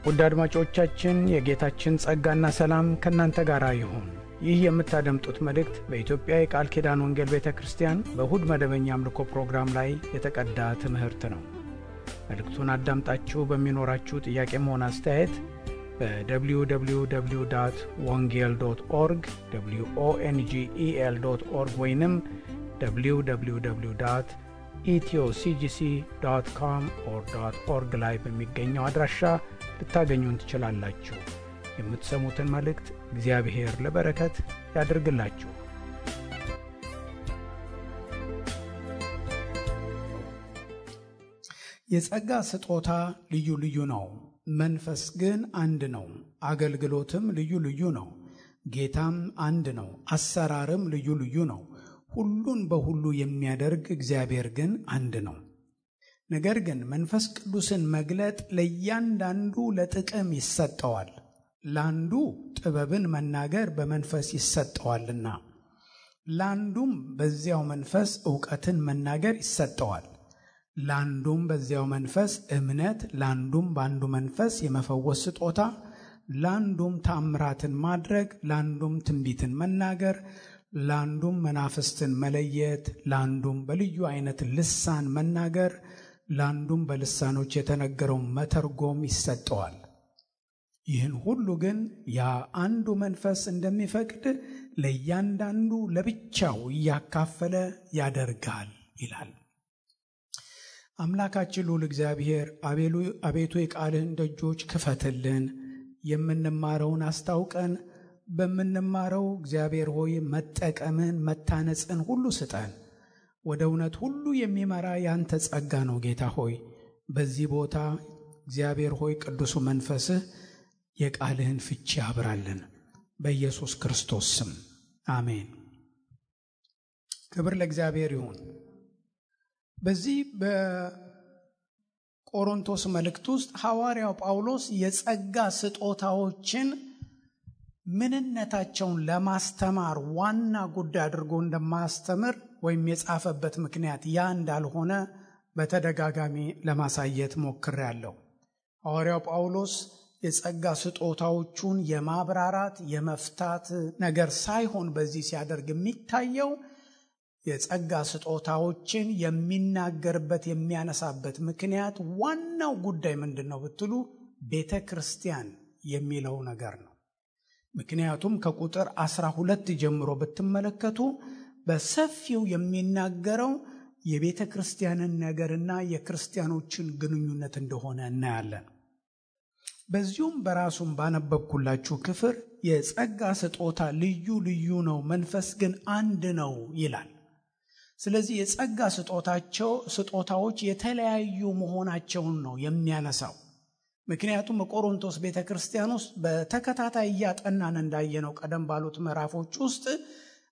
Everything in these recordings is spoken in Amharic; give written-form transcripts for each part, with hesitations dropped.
ውድ አድማጮቻችን የጌታችን ጸጋና ሰላም ከእናንተ ጋር ይሁን። ይህ የምታደምጡት መልእክት በኢትዮጵያ የቃል ኪዳን ወንጌል ቤተ ክርስቲያን በእሁድ መደበኛ አምልኮ ፕሮግራም ላይ የተቀዳ ትምህርት ነው። መልእክቱን አዳምጣችሁ በሚኖራችሁ ጥያቄም ሆነ አስተያየት በwww.wongel.org wongel.org ወይንም www.ethioCGC.com/org ላይ በሚገኘው አድራሻ ልታገኙን ትችላላችሁ። የምትሰሙትን መልእክት እግዚአብሔር ለበረከት ያድርግላችሁ። የጸጋ ስጦታ ልዩ ልዩ ነው፣ መንፈስ ግን አንድ ነው። አገልግሎትም ልዩ ልዩ ነው፣ ጌታም አንድ ነው። አሰራርም ልዩ ልዩ ነው፣ ሁሉን በሁሉ የሚያደርግ እግዚአብሔር ግን አንድ ነው። ነገር ግን መንፈስ ቅዱስን መግለጥ ለእያንዳንዱ ለጥቅም ይሰጠዋል። ለአንዱ ጥበብን መናገር በመንፈስ ይሰጠዋልና፣ ለአንዱም በዚያው መንፈስ ዕውቀትን መናገር ይሰጠዋል። ለአንዱም በዚያው መንፈስ እምነት፣ ለአንዱም በአንዱ መንፈስ የመፈወስ ስጦታ፣ ለአንዱም ተአምራትን ማድረግ፣ ለአንዱም ትንቢትን መናገር፣ ለአንዱም መናፍስትን መለየት፣ ለአንዱም በልዩ አይነት ልሳን መናገር፣ ለአንዱም በልሳኖች የተነገረውን መተርጎም ይሰጠዋል። ይህን ሁሉ ግን ያ አንዱ መንፈስ እንደሚፈቅድ ለእያንዳንዱ ለብቻው እያካፈለ ያደርጋል ይላል። አምላካችን ልዑል እግዚአብሔር አቤቱ የቃልህን ደጆች ክፈትልን፣ የምንማረውን አስታውቀን፣ በምንማረው እግዚአብሔር ሆይ መጠቀምን መታነጽን ሁሉ ስጠን። ወደ እውነት ሁሉ የሚመራ ያንተ ጸጋ ነው ጌታ ሆይ። በዚህ ቦታ እግዚአብሔር ሆይ ቅዱሱ መንፈስህ የቃልህን ፍቺ ያብራልን፣ በኢየሱስ ክርስቶስ ስም አሜን። ክብር ለእግዚአብሔር ይሁን። በዚህ በቆሮንቶስ መልእክት ውስጥ ሐዋርያው ጳውሎስ የጸጋ ስጦታዎችን ምንነታቸውን ለማስተማር ዋና ጉዳይ አድርጎ እንደማስተምር ወይም የጻፈበት ምክንያት ያ እንዳልሆነ በተደጋጋሚ ለማሳየት ሞክሬያለሁ። ሐዋርያው ጳውሎስ የጸጋ ስጦታዎቹን የማብራራት የመፍታት ነገር ሳይሆን በዚህ ሲያደርግ የሚታየው የጸጋ ስጦታዎችን የሚናገርበት የሚያነሳበት ምክንያት ዋናው ጉዳይ ምንድን ነው ብትሉ ቤተ ክርስቲያን የሚለው ነገር ነው። ምክንያቱም ከቁጥር 12 ጀምሮ ብትመለከቱ በሰፊው የሚናገረው የቤተ ክርስቲያንን ነገርና የክርስቲያኖችን ግንኙነት እንደሆነ እናያለን። በዚሁም በራሱም ባነበብኩላችሁ ክፍል የጸጋ ስጦታ ልዩ ልዩ ነው፣ መንፈስ ግን አንድ ነው ይላል። ስለዚህ የጸጋ ስጦታዎች የተለያዩ መሆናቸውን ነው የሚያነሳው። ምክንያቱም በቆሮንቶስ ቤተ ክርስቲያን ውስጥ በተከታታይ እያጠናን እንዳየነው ቀደም ባሉት ምዕራፎች ውስጥ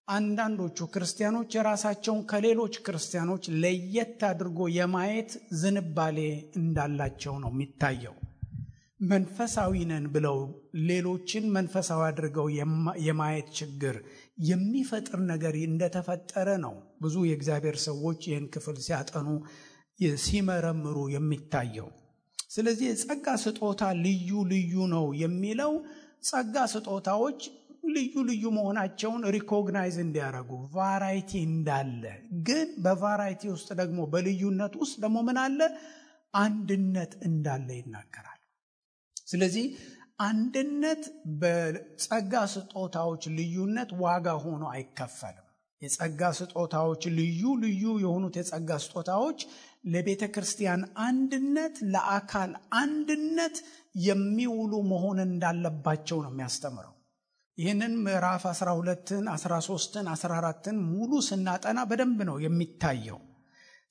አንዳንዶቹ ክርስቲያኖች የራሳቸውን ከሌሎች ክርስቲያኖች ለየት አድርጎ የማየት ዝንባሌ እንዳላቸው ነው የሚታየው። መንፈሳዊ ነን ብለው ሌሎችን መንፈሳዊ አድርገው የማየት ችግር የሚፈጥር ነገር እንደተፈጠረ ነው ብዙ የእግዚአብሔር ሰዎች ይህን ክፍል ሲያጠኑ ሲመረምሩ የሚታየው። ስለዚህ የጸጋ ስጦታ ልዩ ልዩ ነው የሚለው ጸጋ ስጦታዎች ልዩ ልዩ መሆናቸውን ሪኮግናይዝ እንዲያደርጉ ቫራይቲ እንዳለ፣ ግን በቫራይቲ ውስጥ ደግሞ በልዩነት ውስጥ ደግሞ ምን አለ? አንድነት እንዳለ ይናገራል። ስለዚህ አንድነት በጸጋ ስጦታዎች ልዩነት ዋጋ ሆኖ አይከፈልም። የጸጋ ስጦታዎች ልዩ ልዩ የሆኑት የጸጋ ስጦታዎች ለቤተ ክርስቲያን አንድነት፣ ለአካል አንድነት የሚውሉ መሆን እንዳለባቸው ነው የሚያስተምረው። ይህንን ምዕራፍ 12ን 13ን 14ን ሙሉ ስናጠና በደንብ ነው የሚታየው።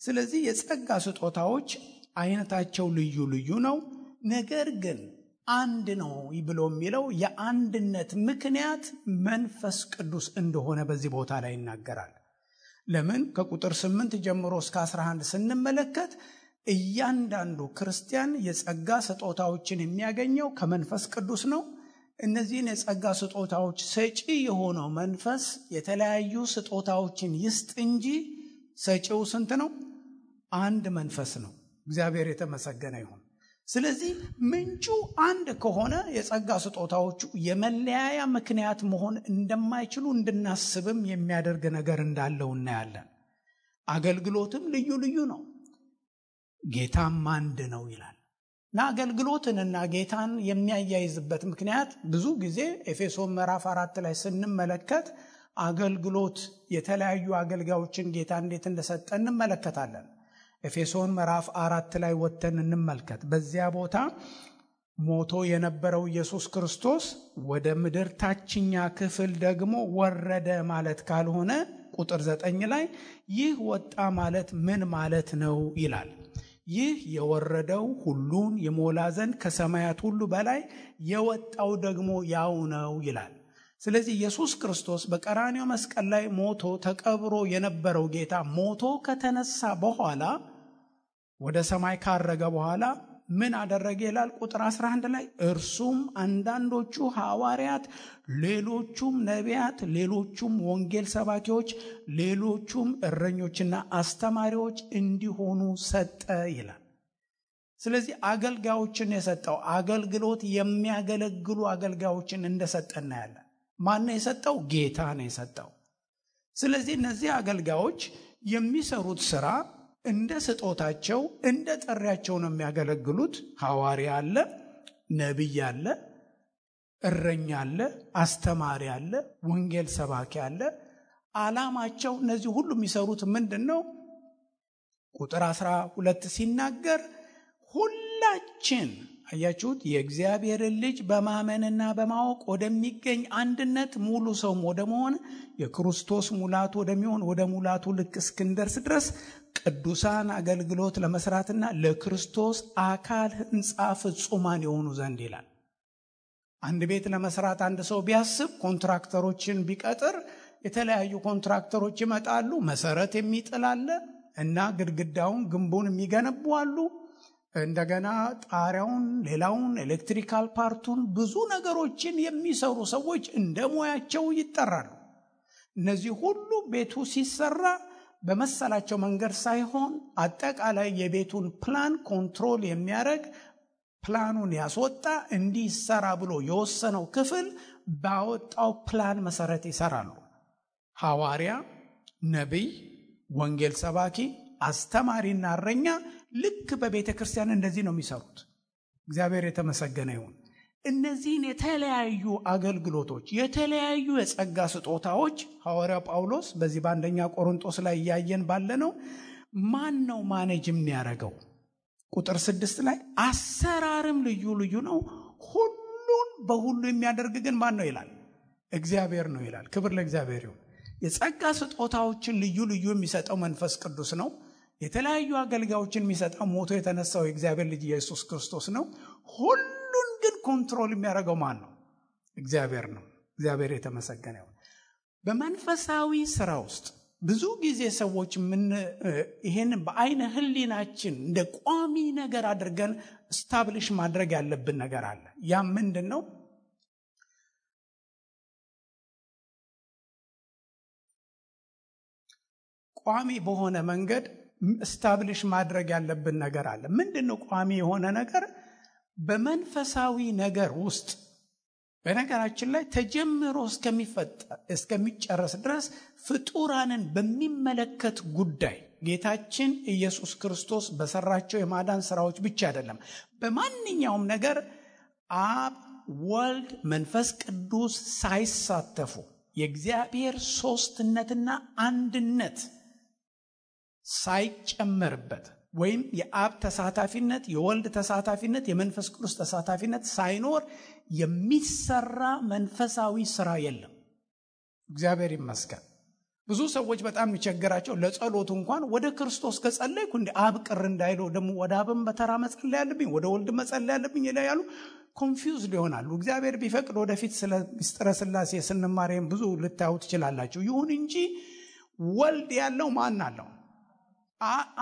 ስለዚህ የጸጋ ስጦታዎች አይነታቸው ልዩ ልዩ ነው፣ ነገር ግን አንድ ነው ብሎ የሚለው የአንድነት ምክንያት መንፈስ ቅዱስ እንደሆነ በዚህ ቦታ ላይ ይናገራል። ለምን? ከቁጥር 8 ጀምሮ እስከ 11 ስንመለከት እያንዳንዱ ክርስቲያን የጸጋ ስጦታዎችን የሚያገኘው ከመንፈስ ቅዱስ ነው። እነዚህን የጸጋ ስጦታዎች ሰጪ የሆነው መንፈስ የተለያዩ ስጦታዎችን ይስጥ እንጂ ሰጪው ስንት ነው? አንድ መንፈስ ነው። እግዚአብሔር የተመሰገነ ይሁን። ስለዚህ ምንጩ አንድ ከሆነ የጸጋ ስጦታዎቹ የመለያያ ምክንያት መሆን እንደማይችሉ እንድናስብም የሚያደርግ ነገር እንዳለው እናያለን። አገልግሎትም ልዩ ልዩ ነው፣ ጌታም አንድ ነው ይላል እና አገልግሎትንና ጌታን የሚያያይዝበት ምክንያት ብዙ ጊዜ ኤፌሶን ምዕራፍ 4 ላይ ስንመለከት አገልግሎት የተለያዩ አገልጋዮችን ጌታ እንዴት እንደሰጠ እንመለከታለን። ኤፌሶን ምዕራፍ 4 ላይ ወጥተን እንመልከት። በዚያ ቦታ ሞቶ የነበረው ኢየሱስ ክርስቶስ ወደ ምድር ታችኛ ክፍል ደግሞ ወረደ ማለት ካልሆነ ቁጥር 9 ላይ ይህ ወጣ ማለት ምን ማለት ነው ይላል። ይህ የወረደው ሁሉን የሞላ ዘንድ ከሰማያት ሁሉ በላይ የወጣው ደግሞ ያው ነው ይላል። ስለዚህ ኢየሱስ ክርስቶስ በቀራንዮ መስቀል ላይ ሞቶ ተቀብሮ የነበረው ጌታ ሞቶ ከተነሳ በኋላ ወደ ሰማይ ካረገ በኋላ ምን አደረገ ይላል ቁጥር 11 ላይ እርሱም አንዳንዶቹ ሐዋርያት፣ ሌሎቹም ነቢያት፣ ሌሎቹም ወንጌል ሰባኪዎች፣ ሌሎቹም እረኞችና አስተማሪዎች እንዲሆኑ ሰጠ ይላል። ስለዚህ አገልጋዮችን የሰጠው አገልግሎት የሚያገለግሉ አገልጋዮችን እንደሰጠ እናያለን። ማን ነው የሰጠው? ጌታ ነው የሰጠው። ስለዚህ እነዚህ አገልጋዮች የሚሰሩት ስራ እንደ ስጦታቸው እንደ ጥሪያቸው ነው የሚያገለግሉት። ሐዋርያ አለ፣ ነቢይ አለ፣ እረኛ አለ፣ አስተማሪ አለ፣ ወንጌል ሰባኪ አለ። ዓላማቸው እነዚህ ሁሉ የሚሰሩት ምንድነው? ቁጥር 12 ሲናገር ሁላችን አያችሁት የእግዚአብሔርን ልጅ በማመንና በማወቅ ወደሚገኝ አንድነት ሙሉ ሰውም ወደ መሆን የክርስቶስ ሙላቱ ወደሚሆን ወደ ሙላቱ ልክ እስክንደርስ ድረስ ቅዱሳን አገልግሎት ለመስራትና ለክርስቶስ አካል ሕንጻ ፍጹማን የሆኑ ዘንድ ይላል። አንድ ቤት ለመስራት አንድ ሰው ቢያስብ ኮንትራክተሮችን ቢቀጥር የተለያዩ ኮንትራክተሮች ይመጣሉ። መሰረት የሚጥል አለ እና ግድግዳውን ግንቡን የሚገነቡ አሉ። እንደገና ጣሪያውን፣ ሌላውን፣ ኤሌክትሪካል ፓርቱን ብዙ ነገሮችን የሚሰሩ ሰዎች እንደ ሙያቸው ይጠራሉ። እነዚህ ሁሉ ቤቱ ሲሰራ በመሰላቸው መንገድ ሳይሆን አጠቃላይ የቤቱን ፕላን ኮንትሮል የሚያደርግ ፕላኑን ያስወጣ እንዲሰራ ብሎ የወሰነው ክፍል ባወጣው ፕላን መሰረት ይሰራሉ። ሐዋርያ፣ ነቢይ፣ ወንጌል ሰባኪ፣ አስተማሪና እረኛ ልክ በቤተ ክርስቲያን እንደዚህ ነው የሚሰሩት። እግዚአብሔር የተመሰገነ ይሁን። እነዚህን የተለያዩ አገልግሎቶች የተለያዩ የጸጋ ስጦታዎች ሐዋርያው ጳውሎስ በዚህ በአንደኛ ቆሮንቶስ ላይ እያየን ባለነው ማን ነው ማኔጅ የሚያደርገው? ቁጥር 6 ላይ አሰራርም ልዩ ልዩ ነው፣ ሁሉን በሁሉ የሚያደርግ ግን ማን ነው ይላል? እግዚአብሔር ነው ይላል። ክብር ለእግዚአብሔር ይሁን። የጸጋ ስጦታዎችን ልዩ ልዩ የሚሰጠው መንፈስ ቅዱስ ነው። የተለያዩ አገልጋዮችን የሚሰጠው ሞቶ የተነሳው የእግዚአብሔር ልጅ ኢየሱስ ክርስቶስ ነው። ሁሉን ግን ኮንትሮል የሚያደርገው ማን ነው? እግዚአብሔር ነው። እግዚአብሔር የተመሰገነ ይሁን። በመንፈሳዊ ስራ ውስጥ ብዙ ጊዜ ሰዎች ይሄን በአይነ ህሊናችን እንደ ቋሚ ነገር አድርገን ስታብሊሽ ማድረግ ያለብን ነገር አለ። ያ ምንድነው? ቋሚ በሆነ መንገድ ስታብሊሽ ማድረግ ያለብን ነገር አለ። ምንድነው ቋሚ የሆነ ነገር? በመንፈሳዊ ነገር ውስጥ በነገራችን ላይ ተጀምሮ እስከሚጨረስ ድረስ ፍጡራንን በሚመለከት ጉዳይ ጌታችን ኢየሱስ ክርስቶስ በሰራቸው የማዳን ስራዎች ብቻ አይደለም፣ በማንኛውም ነገር አብ፣ ወልድ፣ መንፈስ ቅዱስ ሳይሳተፉ የእግዚአብሔር ሶስትነትና አንድነት ሳይጨመርበት ወይም የአብ ተሳታፊነት፣ የወልድ ተሳታፊነት፣ የመንፈስ ቅዱስ ተሳታፊነት ሳይኖር የሚሰራ መንፈሳዊ ስራ የለም። እግዚአብሔር ይመስገን። ብዙ ሰዎች በጣም የሚቸግራቸው ለጸሎት እንኳን ወደ ክርስቶስ ከጸለይኩ እንደ አብ ቅር እንዳይለው ደግሞ ወደ አብም በተራ መጸለይ ያለብኝ ወደ ወልድ መጸለይ ያለብኝ ይላሉ። ኮንፊውዝድ ይሆናሉ። እግዚአብሔር ቢፈቅድ ወደፊት ስለ ምስጢረ ሥላሴ ስንማርም ብዙ ልታዩ ትችላላችሁ። ይሁን እንጂ ወልድ ያለው ማን አለው?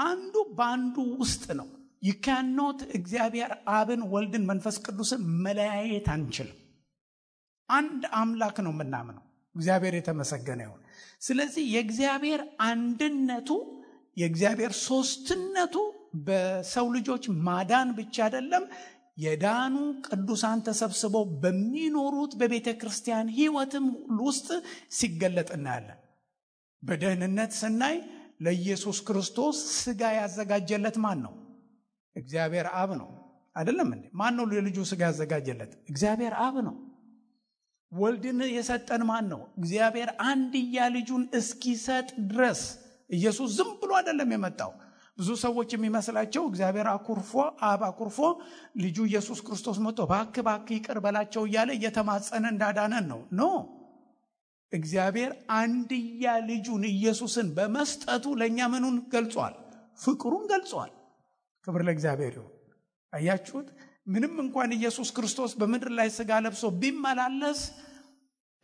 አንዱ በአንዱ ውስጥ ነው። you cannot እግዚአብሔር አብን፣ ወልድን፣ መንፈስ ቅዱስን መለያየት አንችልም። አንድ አምላክ ነው የምናምነው። እግዚአብሔር የተመሰገነ ይሁን። ስለዚህ የእግዚአብሔር አንድነቱ፣ የእግዚአብሔር ሶስትነቱ በሰው ልጆች ማዳን ብቻ አይደለም፣ የዳኑ ቅዱሳን ተሰብስበው በሚኖሩት በቤተ ክርስቲያን ሕይወትም ውስጥ ሲገለጥ እናያለን። በደህንነት ስናይ ለኢየሱስ ክርስቶስ ሥጋ ያዘጋጀለት ማን ነው? እግዚአብሔር አብ ነው። አይደለም እንዴ? ማን ነው ለልጁ ሥጋ ያዘጋጀለት? እግዚአብሔር አብ ነው። ወልድን የሰጠን ማን ነው? እግዚአብሔር አንድያ ልጁን እስኪሰጥ ድረስ። ኢየሱስ ዝም ብሎ አይደለም የመጣው። ብዙ ሰዎች የሚመስላቸው እግዚአብሔር አብ አኩርፎ ልጁ ኢየሱስ ክርስቶስ መጥቶ እባክህ ይቅር በላቸው እያለ እየተማጸነ እንዳዳነን ነው። ኖ፣ እግዚአብሔር አንድያ ልጁን ኢየሱስን በመስጠቱ ለእኛ ምኑን ገልጿል? ፍቅሩን ገልጿል። ክብር ለእግዚአብሔር ይሁን። አያችሁት? ምንም እንኳን ኢየሱስ ክርስቶስ በምድር ላይ ሥጋ ለብሶ ቢመላለስ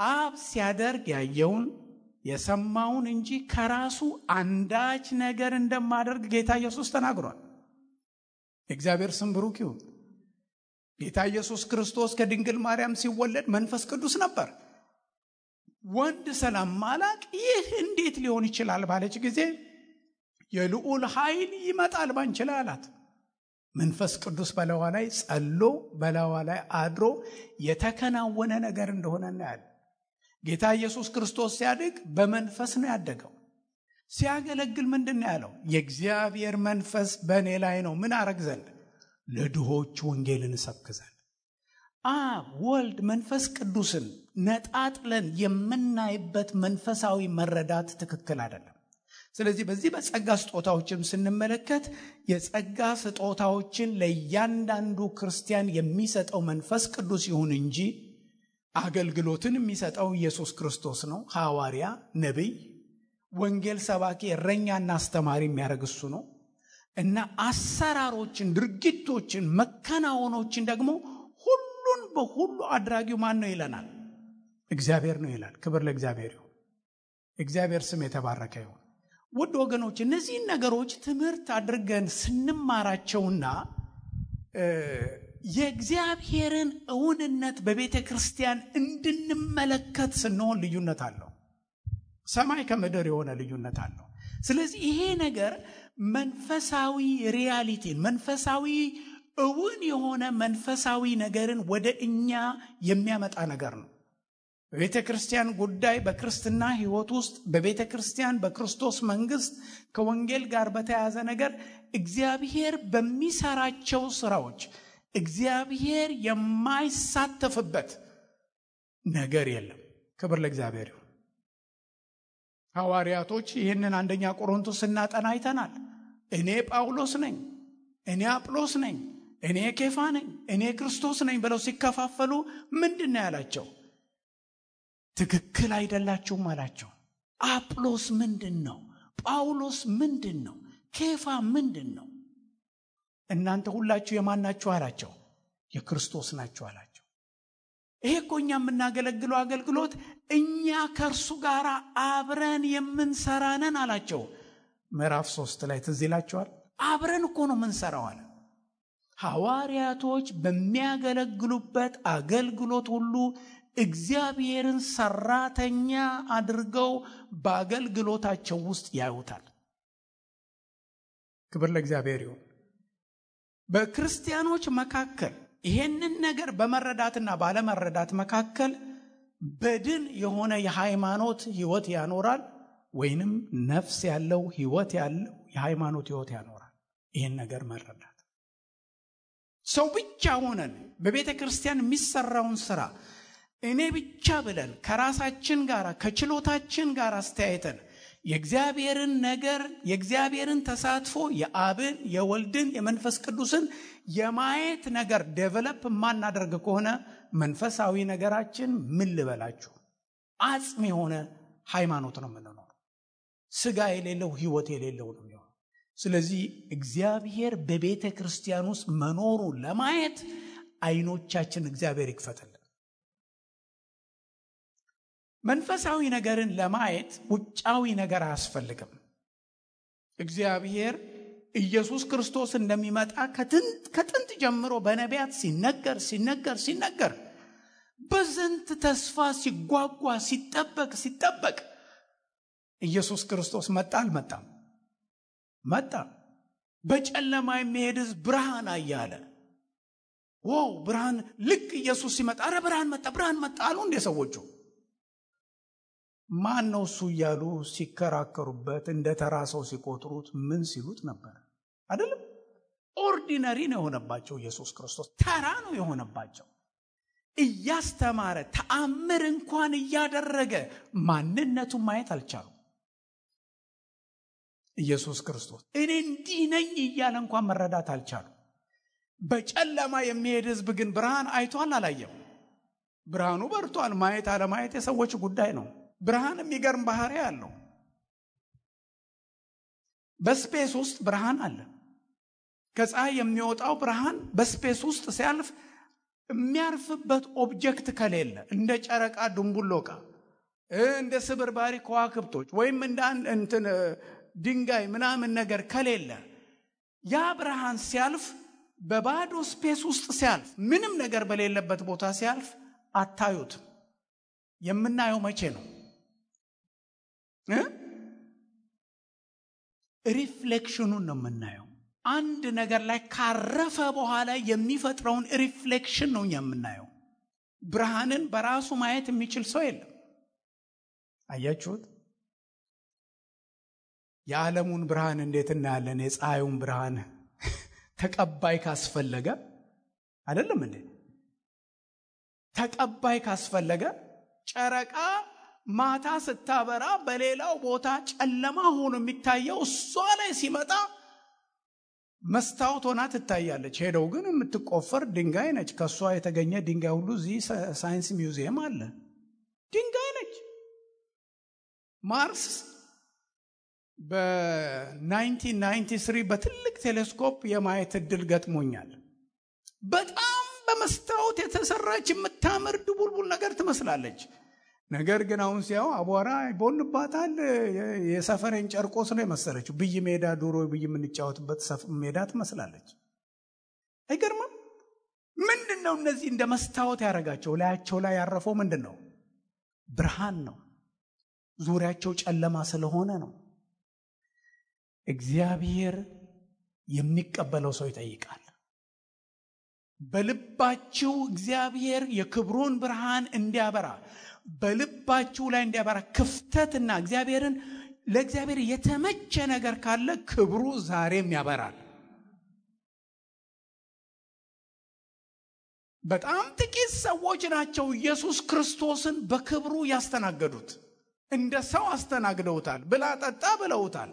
አብ ሲያደርግ ያየውን የሰማውን እንጂ ከራሱ አንዳች ነገር እንደማደርግ ጌታ ኢየሱስ ተናግሯል። የእግዚአብሔር ስም ብሩክ ይሁን። ጌታ ኢየሱስ ክርስቶስ ከድንግል ማርያም ሲወለድ መንፈስ ቅዱስ ነበር። ወንድ ስለማላቅ ይህ እንዴት ሊሆን ይችላል ባለች ጊዜ የልዑል ኃይል ይመጣል ባንቺ ላይ አላት። መንፈስ ቅዱስ በላዋ ላይ ጸሎ በላዋ ላይ አድሮ የተከናወነ ነገር እንደሆነ እናያለን። ጌታ ኢየሱስ ክርስቶስ ሲያድግ በመንፈስ ነው ያደገው። ሲያገለግል ምንድን ነው ያለው? የእግዚአብሔር መንፈስ በእኔ ላይ ነው። ምን አረግ ዘንድ? ለድሆች ወንጌልን እሰብክ ዘንድ። አብ፣ ወልድ፣ መንፈስ ቅዱስን ነጣጥለን የምናይበት መንፈሳዊ መረዳት ትክክል አይደለም። ስለዚህ በዚህ በጸጋ ስጦታዎችም ስንመለከት የጸጋ ስጦታዎችን ለእያንዳንዱ ክርስቲያን የሚሰጠው መንፈስ ቅዱስ ይሁን እንጂ አገልግሎትን የሚሰጠው ኢየሱስ ክርስቶስ ነው። ሐዋርያ፣ ነቢይ፣ ወንጌል ሰባኪ፣ እረኛና አስተማሪ የሚያደርግ እሱ ነው እና አሰራሮችን፣ ድርጊቶችን፣ መከናወኖችን ደግሞ ሁሉን በሁሉ አድራጊው ማን ነው ይለናል? እግዚአብሔር ነው ይላል። ክብር ለእግዚአብሔር ይሁን። እግዚአብሔር ስም የተባረከ ይሁን። ውድ ወገኖች፣ እነዚህን ነገሮች ትምህርት አድርገን ስንማራቸውና የእግዚአብሔርን እውንነት በቤተ ክርስቲያን እንድንመለከት ስንሆን ልዩነት አለው። ሰማይ ከምድር የሆነ ልዩነት አለው። ስለዚህ ይሄ ነገር መንፈሳዊ ሪያሊቲን፣ መንፈሳዊ እውን የሆነ መንፈሳዊ ነገርን ወደ እኛ የሚያመጣ ነገር ነው። በቤተ ክርስቲያን ጉዳይ፣ በክርስትና ሕይወት ውስጥ፣ በቤተ ክርስቲያን በክርስቶስ መንግስት ከወንጌል ጋር በተያያዘ ነገር እግዚአብሔር በሚሰራቸው ስራዎች እግዚአብሔር የማይሳተፍበት ነገር የለም። ክብር ለእግዚአብሔር ይሁን። ሐዋርያቶች ይህንን አንደኛ ቆሮንቶስ ስናጠና አይተናል። እኔ ጳውሎስ ነኝ፣ እኔ አጵሎስ ነኝ፣ እኔ ኬፋ ነኝ፣ እኔ ክርስቶስ ነኝ ብለው ሲከፋፈሉ ምንድን ነው ያላቸው? ትክክል አይደላችሁም አላቸው። አጵሎስ ምንድን ነው? ጳውሎስ ምንድን ነው? ኬፋ ምንድን ነው? እናንተ ሁላችሁ የማን ናችሁ አላቸው? የክርስቶስ ናችሁ አላቸው። ይሄ እኮ እኛ የምናገለግለው አገልግሎት እኛ ከእርሱ ጋር አብረን የምንሰራ ነን አላቸው። ምዕራፍ 3 ላይ ትዝ ይላችኋል። አብረን እኮ ነው የምንሰራው አለ። ሐዋርያቶች በሚያገለግሉበት አገልግሎት ሁሉ እግዚአብሔርን ሰራተኛ አድርገው በአገልግሎታቸው ውስጥ ያዩታል። ክብር ለእግዚአብሔር ይሁን። በክርስቲያኖች መካከል ይሄንን ነገር በመረዳትና ባለመረዳት መካከል በድን የሆነ የሃይማኖት ህይወት ያኖራል፣ ወይንም ነፍስ ያለው ህይወት ያለው የሃይማኖት ህይወት ያኖራል። ይሄን ነገር መረዳት ሰው ብቻ ሆነን በቤተ ክርስቲያን የሚሰራውን ስራ እኔ ብቻ ብለን ከራሳችን ጋር ከችሎታችን ጋር አስተያየተን የእግዚአብሔርን ነገር የእግዚአብሔርን ተሳትፎ የአብን የወልድን የመንፈስ ቅዱስን የማየት ነገር ዴቨሎፕ ማናደርግ ከሆነ መንፈሳዊ ነገራችን ምን ልበላችሁ አጽም የሆነ ሃይማኖት ነው የምንኖረው። ስጋ የሌለው ህይወት የሌለው ነው የሚሆነው። ስለዚህ እግዚአብሔር በቤተ ክርስቲያን ውስጥ መኖሩ ለማየት አይኖቻችን እግዚአብሔር ይክፈትልን። መንፈሳዊ ነገርን ለማየት ውጫዊ ነገር አያስፈልግም። እግዚአብሔር ኢየሱስ ክርስቶስ እንደሚመጣ ከጥንት ጀምሮ በነቢያት ሲነገር በዝንት ተስፋ ሲጓጓ ሲጠበቅ ኢየሱስ ክርስቶስ መጣ አልመጣም? መጣ። በጨለማ የሚሄድ ሕዝብ ብርሃን አያለ። ዋው ብርሃን! ልክ ኢየሱስ ሲመጣ አረ ብርሃን መጣ አሉ እንደ ሰዎቹ። ማን ነው እሱ እያሉ ሲከራከሩበት እንደ ተራ ሰው ሲቆጥሩት ምን ሲሉት ነበር አይደለም? ኦርዲነሪ ነው የሆነባቸው። ኢየሱስ ክርስቶስ ተራ ነው የሆነባቸው። እያስተማረ ተአምር እንኳን እያደረገ ማንነቱን ማየት አልቻሉም። ኢየሱስ ክርስቶስ እኔ እንዲህ ነኝ እያለ እንኳን መረዳት አልቻሉም። በጨለማ የሚሄድ ሕዝብ ግን ብርሃን አይቷል አላየም? ብርሃኑ በርቷል። ማየት አለማየት የሰዎች ጉዳይ ነው። ብርሃን የሚገርም ባህሪ አለው። በስፔስ ውስጥ ብርሃን አለ። ከፀሐይ የሚወጣው ብርሃን በስፔስ ውስጥ ሲያልፍ የሚያርፍበት ኦብጀክት ከሌለ እንደ ጨረቃ ድንቡሎቃ፣ እንደ ስብርባሪ ከዋክብቶች ወይም እንደ ድንጋይ ምናምን ነገር ከሌለ ያ ብርሃን ሲያልፍ በባዶ ስፔስ ውስጥ ሲያልፍ ምንም ነገር በሌለበት ቦታ ሲያልፍ አታዩትም። የምናየው መቼ ነው? ሪፍሌክሽኑን ነው የምናየው። አንድ ነገር ላይ ካረፈ በኋላ የሚፈጥረውን ሪፍሌክሽን ነው የምናየው። ብርሃንን በራሱ ማየት የሚችል ሰው የለም። አያችሁት? የዓለሙን ብርሃን እንዴት እናያለን? የፀሐዩን ብርሃን ተቀባይ ካስፈለገ አይደለም እንዴ? ተቀባይ ካስፈለገ ጨረቃ ማታ ስታበራ በሌላው ቦታ ጨለማ ሆኖ የሚታየው እሷ ላይ ሲመጣ መስታወት ሆና ትታያለች። ሄደው ግን የምትቆፈር ድንጋይ ነች። ከሷ የተገኘ ድንጋይ ሁሉ እዚህ ሳይንስ ሚውዚየም አለ። ድንጋይ ነች። ማርስ በ1993 በትልቅ ቴሌስኮፕ የማየት እድል ገጥሞኛል። በጣም በመስታወት የተሰራች የምታምር ድቡልቡል ነገር ትመስላለች። ነገር ግን አሁን ሲያው አቧራ ይቦንባታል። የሰፈሬን ጨርቆስ ነው የመሰለችው። ብይ ሜዳ ዱሮ ብይ የምንጫወትበት ሜዳ ትመስላለች። አይገርምም? ምንድነው እነዚህ እንደ መስታወት ያደረጋቸው? ላያቸው ላይ ያረፈው ምንድነው? ብርሃን ነው። ዙሪያቸው ጨለማ ስለሆነ ነው። እግዚአብሔር የሚቀበለው ሰው ይጠይቃል። በልባችሁ እግዚአብሔር የክብሩን ብርሃን እንዲያበራ በልባችሁ ላይ እንዲያበራ ክፍተትና ለእግዚአብሔር የተመቸ ነገር ካለ ክብሩ ዛሬም ያበራል። በጣም ጥቂት ሰዎች ናቸው ኢየሱስ ክርስቶስን በክብሩ ያስተናገዱት። እንደ ሰው አስተናግደውታል። ብላ ጠጣ ብለውታል።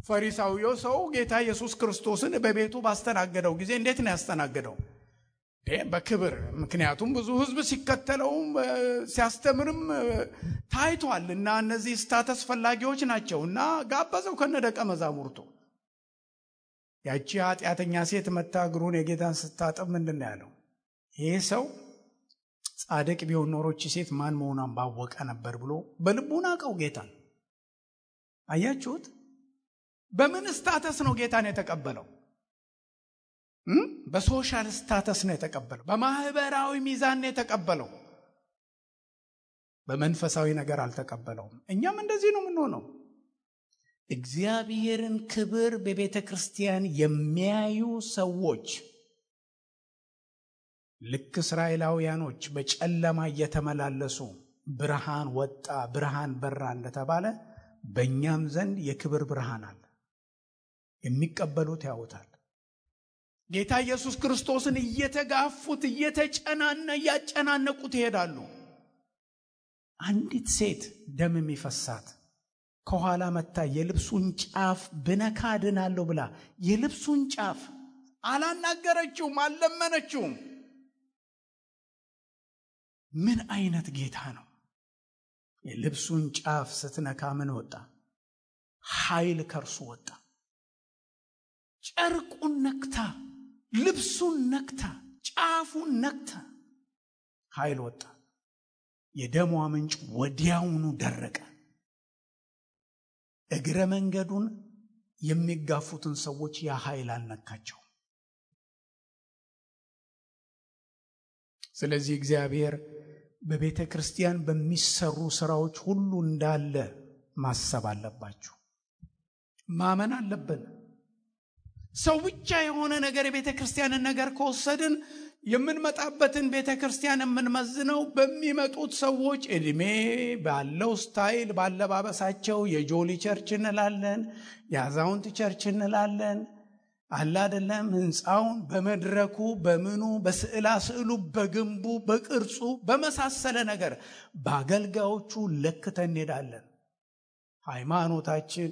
ፈሪሳዊው ሰው ጌታ ኢየሱስ ክርስቶስን በቤቱ ባስተናገደው ጊዜ እንዴት ነው ያስተናገደው? በክብር። ምክንያቱም ብዙ ሕዝብ ሲከተለው ሲያስተምርም ታይቷል እና እነዚህ ስታተስ ፈላጊዎች ናቸው እና ጋበዘው ከነደቀ መዛሙርቱ። ያቺ ኃጢአተኛ ሴት መታ እግሩን የጌታን ስታጠብ ምንድን ነው ያለው? ይሄ ሰው ጻድቅ ቢሆን ኖሮች ሴት ማን መሆኗን ባወቀ ነበር ብሎ በልቡ ናቀው ጌታን። አያችሁት? በምን ስታተስ ነው ጌታን የተቀበለው? በሶሻል ስታተስ ነው የተቀበለው። በማህበራዊ ሚዛን ነው የተቀበለው። በመንፈሳዊ ነገር አልተቀበለውም። እኛም እንደዚህ ነው የምንሆነው። እግዚአብሔርን ክብር በቤተ ክርስቲያን የሚያዩ ሰዎች ልክ እስራኤላውያኖች በጨለማ እየተመላለሱ ብርሃን ወጣ፣ ብርሃን በራ እንደተባለ በእኛም ዘንድ የክብር ብርሃን አለ። የሚቀበሉት ያውታል። ጌታ ኢየሱስ ክርስቶስን እየተጋፉት እያጨናነቁት ይሄዳሉ። አንዲት ሴት ደም የሚፈሳት ከኋላ መታ የልብሱን ጫፍ ብነካ ድናለሁ ብላ የልብሱን ጫፍ አላናገረችውም፣ አልለመነችውም። ምን አይነት ጌታ ነው! የልብሱን ጫፍ ስትነካ ምን ወጣ? ኃይል ከርሱ ወጣ። ጨርቁን ነክታ፣ ልብሱን ነክታ፣ ጫፉን ነክታ ኃይል ወጣ። የደሟ ምንጭ ወዲያውኑ ደረቀ። እግረ መንገዱን የሚጋፉትን ሰዎች ያ ኃይል አልነካቸው። ስለዚህ እግዚአብሔር በቤተ ክርስቲያን በሚሰሩ ስራዎች ሁሉ እንዳለ ማሰብ አለባችሁ። ማመን አለብን። ሰው ብቻ የሆነ ነገር የቤተክርስቲያንን ነገር ከወሰድን የምንመጣበትን ቤተክርስቲያን የምንመዝነው በሚመጡት ሰዎች እድሜ ባለው ስታይል ባለባበሳቸው የጆሊ ቸርች እንላለን፣ የአዛውንት ቸርች እንላለን። አለ አይደለም? ህንፃውን በመድረኩ በምኑ በስዕላ ስዕሉ በግንቡ በቅርጹ በመሳሰለ ነገር በአገልጋዮቹ ለክተን እንሄዳለን። ሃይማኖታችን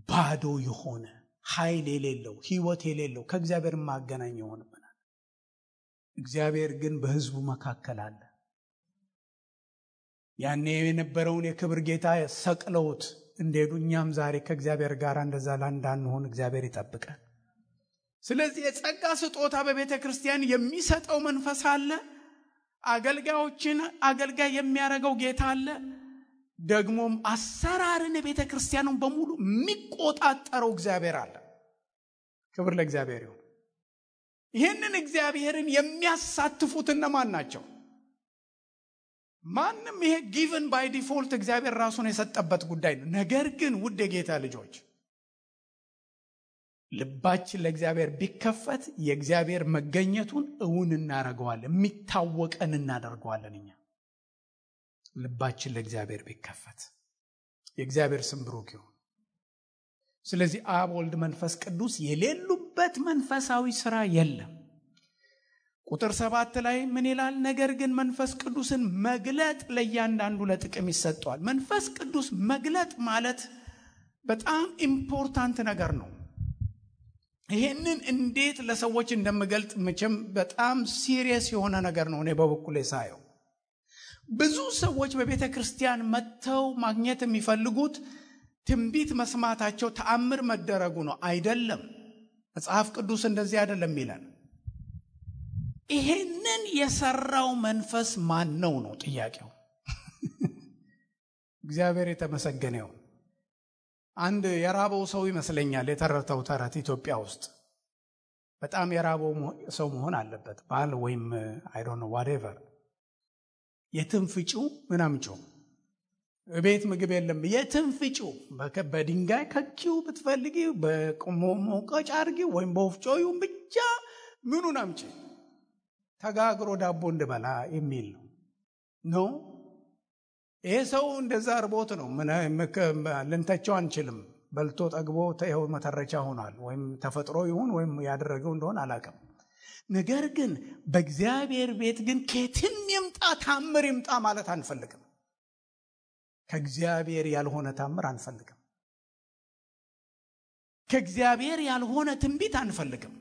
ባዶ የሆነ ኃይል የሌለው ህይወት የሌለው ከእግዚአብሔር ማገናኝ ይሆንብናል። እግዚአብሔር ግን በህዝቡ መካከል አለ። ያኔ የነበረውን የክብር ጌታ ሰቅለውት እንደሄዱ እኛም ዛሬ ከእግዚአብሔር ጋር እንደዛ እንዳንሆን እግዚአብሔር ይጠብቀን። ስለዚህ የጸጋ ስጦታ በቤተ ክርስቲያን የሚሰጠው መንፈስ አለ። አገልጋዮችን አገልጋይ የሚያደርገው ጌታ አለ። ደግሞም አሰራርን የቤተ ክርስቲያኑን በሙሉ የሚቆጣጠረው እግዚአብሔር አለ። ክብር ለእግዚአብሔር ይሁን። ይህንን እግዚአብሔርን የሚያሳትፉት እነማን ናቸው? ማንም ይሄ ጊቨን ባይ ዲፎልት እግዚአብሔር ራሱን የሰጠበት ጉዳይ ነው። ነገር ግን ውድ የጌታ ልጆች ልባችን ለእግዚአብሔር ቢከፈት የእግዚአብሔር መገኘቱን እውን እናደርገዋለን፣ የሚታወቀን እናደርገዋለን። እኛ ልባችን ለእግዚአብሔር ቢከፈት የእግዚአብሔር ስም ብሩክ ይሁን። ስለዚህ አብ፣ ወልድ፣ መንፈስ ቅዱስ የሌሉበት መንፈሳዊ ሥራ የለም። ቁጥር 7 ላይ ምን ይላል? ነገር ግን መንፈስ ቅዱስን መግለጥ ለእያንዳንዱ ለጥቅም ይሰጠዋል። መንፈስ ቅዱስ መግለጥ ማለት በጣም ኢምፖርታንት ነገር ነው። ይሄንን እንዴት ለሰዎች እንደምገልጥ መቼም በጣም ሲሪየስ የሆነ ነገር ነው። እኔ በበኩሌ ሳየው ብዙ ሰዎች በቤተ ክርስቲያን መጥተው ማግኘት የሚፈልጉት ትንቢት መስማታቸው ተአምር መደረጉ ነው። አይደለም። መጽሐፍ ቅዱስ እንደዚህ አይደለም ይላል። ይሄንን የሰራው መንፈስ ማን ነው ነው ጥያቄው። እግዚአብሔር የተመሰገነ ይሁን። አንድ የራበው ሰው ይመስለኛል የተረተው ተረት ኢትዮጵያ ውስጥ በጣም የራበው ሰው መሆን አለበት። ባል ወይም አይ ዶንት ኖ ዋትኤቨር የትም ፍጪው ምናምጪው ቤት ምግብ የለም የትም ፍጪው በድንጋይ ከኪው ብትፈልጊ በቆሞ ሞቀጫ አርጊ ወይም በወፍጮዩ ብቻ ምኑን አምጪ ተጋግሮ ዳቦ እንድበላ የሚል ነው። ይሄ ሰው እንደዛ አርቦት ነው። ምን ልንተቸው አንችልም። በልቶ ጠግቦ ተይው መተረቻ ሆኗል። ወይም ተፈጥሮ ይሁን ወይም ያደረገው እንደሆነ አላውቅም። ነገር ግን በእግዚአብሔር ቤት ግን ከየትም ይምጣ ታምር ይምጣ ማለት አንፈልግም። ከእግዚአብሔር ያልሆነ ታምር አንፈልግም። ከእግዚአብሔር ያልሆነ ትንቢት አንፈልግም።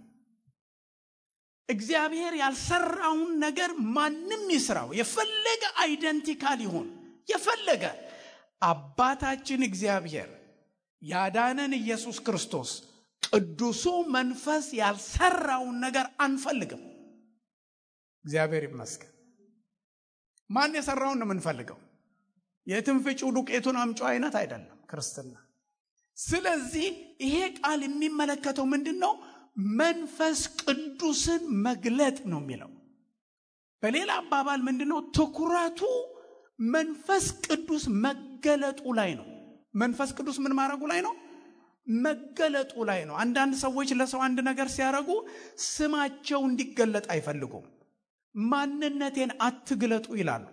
እግዚአብሔር ያልሰራውን ነገር ማንም ይስራው፣ የፈለገ አይደንቲካል ይሁን፣ የፈለገ አባታችን እግዚአብሔር ያዳነን ኢየሱስ ክርስቶስ ቅዱሱ መንፈስ ያልሰራውን ነገር አንፈልግም። እግዚአብሔር ይመስገን። ማን የሰራውን ነው የምንፈልገው? የትንፍጪው ዱቄቱን አምጪው አይነት አይደለም ክርስትና። ስለዚህ ይሄ ቃል የሚመለከተው ምንድነው? መንፈስ ቅዱስን መግለጥ ነው የሚለው። በሌላ አባባል ምንድነው? ትኩረቱ መንፈስ ቅዱስ መገለጡ ላይ ነው። መንፈስ ቅዱስ ምን ማድረጉ ላይ ነው? መገለጡ ላይ ነው። አንዳንድ ሰዎች ለሰው አንድ ነገር ሲያደርጉ ስማቸው እንዲገለጥ አይፈልጉም። ማንነቴን አትግለጡ ይላሉ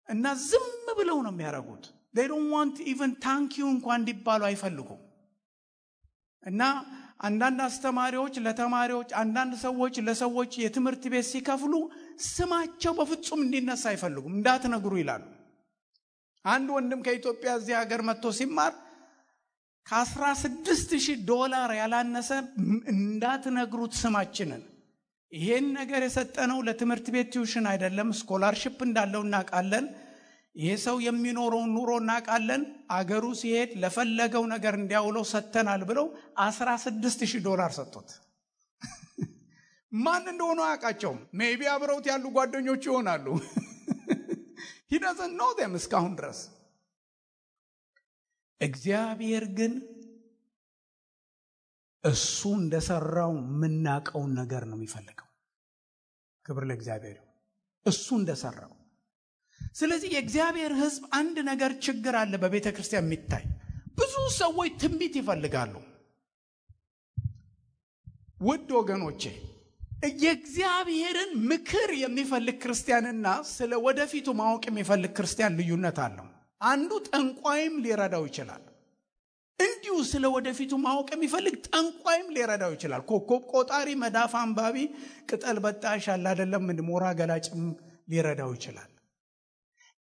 እና ዝም ብለው ነው የሚያደርጉት። they don't want even thank you እንኳን እንዲባሉ አይፈልጉም። እና አንዳንድ አስተማሪዎች ለተማሪዎች፣ አንዳንድ ሰዎች ለሰዎች የትምህርት ቤት ሲከፍሉ ስማቸው በፍጹም እንዲነሳ አይፈልጉም። እንዳትነግሩ ይላሉ። አንድ ወንድም ከኢትዮጵያ እዚህ ሀገር መጥቶ ሲማር $16,000 ያላነሰ እንዳትነግሩት ስማችንን። ይሄን ነገር የሰጠነው ለትምህርት ቤት ቲዩሽን አይደለም፣ ስኮላርሺፕ እንዳለው እናውቃለን። ይሄ ሰው የሚኖረውን ኑሮ እናውቃለን። አገሩ ሲሄድ ለፈለገው ነገር እንዲያውለው ሰተናል ብለው $16,000 ሰጡት። ማን እንደሆነ አያውቃቸውም። ሜቢ አብረውት ያሉ ጓደኞቹ ይሆናሉ። he doesn't know them እስካሁን ድረስ። እግዚአብሔር ግን እሱ እንደሰራው የምናውቀውን ነገር ነው የሚፈልገው። ክብር ለእግዚአብሔር። እሱ እንደሰራው። ስለዚህ የእግዚአብሔር ሕዝብ አንድ ነገር ችግር አለ በቤተ ክርስቲያን የሚታይ። ብዙ ሰዎች ትንቢት ይፈልጋሉ። ውድ ወገኖቼ የእግዚአብሔርን ምክር የሚፈልግ ክርስቲያንና ስለ ወደፊቱ ማወቅ የሚፈልግ ክርስቲያን ልዩነት አለው። አንዱ ጠንቋይም ሊረዳው ይችላል። እንዲሁ ስለ ወደፊቱ ማወቅ የሚፈልግ ጠንቋይም ሊረዳው ይችላል። ኮከብ ቆጣሪ፣ መዳፍ አንባቢ፣ ቅጠል በጣሽ አለ አይደለም ሞራ ገላጭም ሊረዳው ይችላል።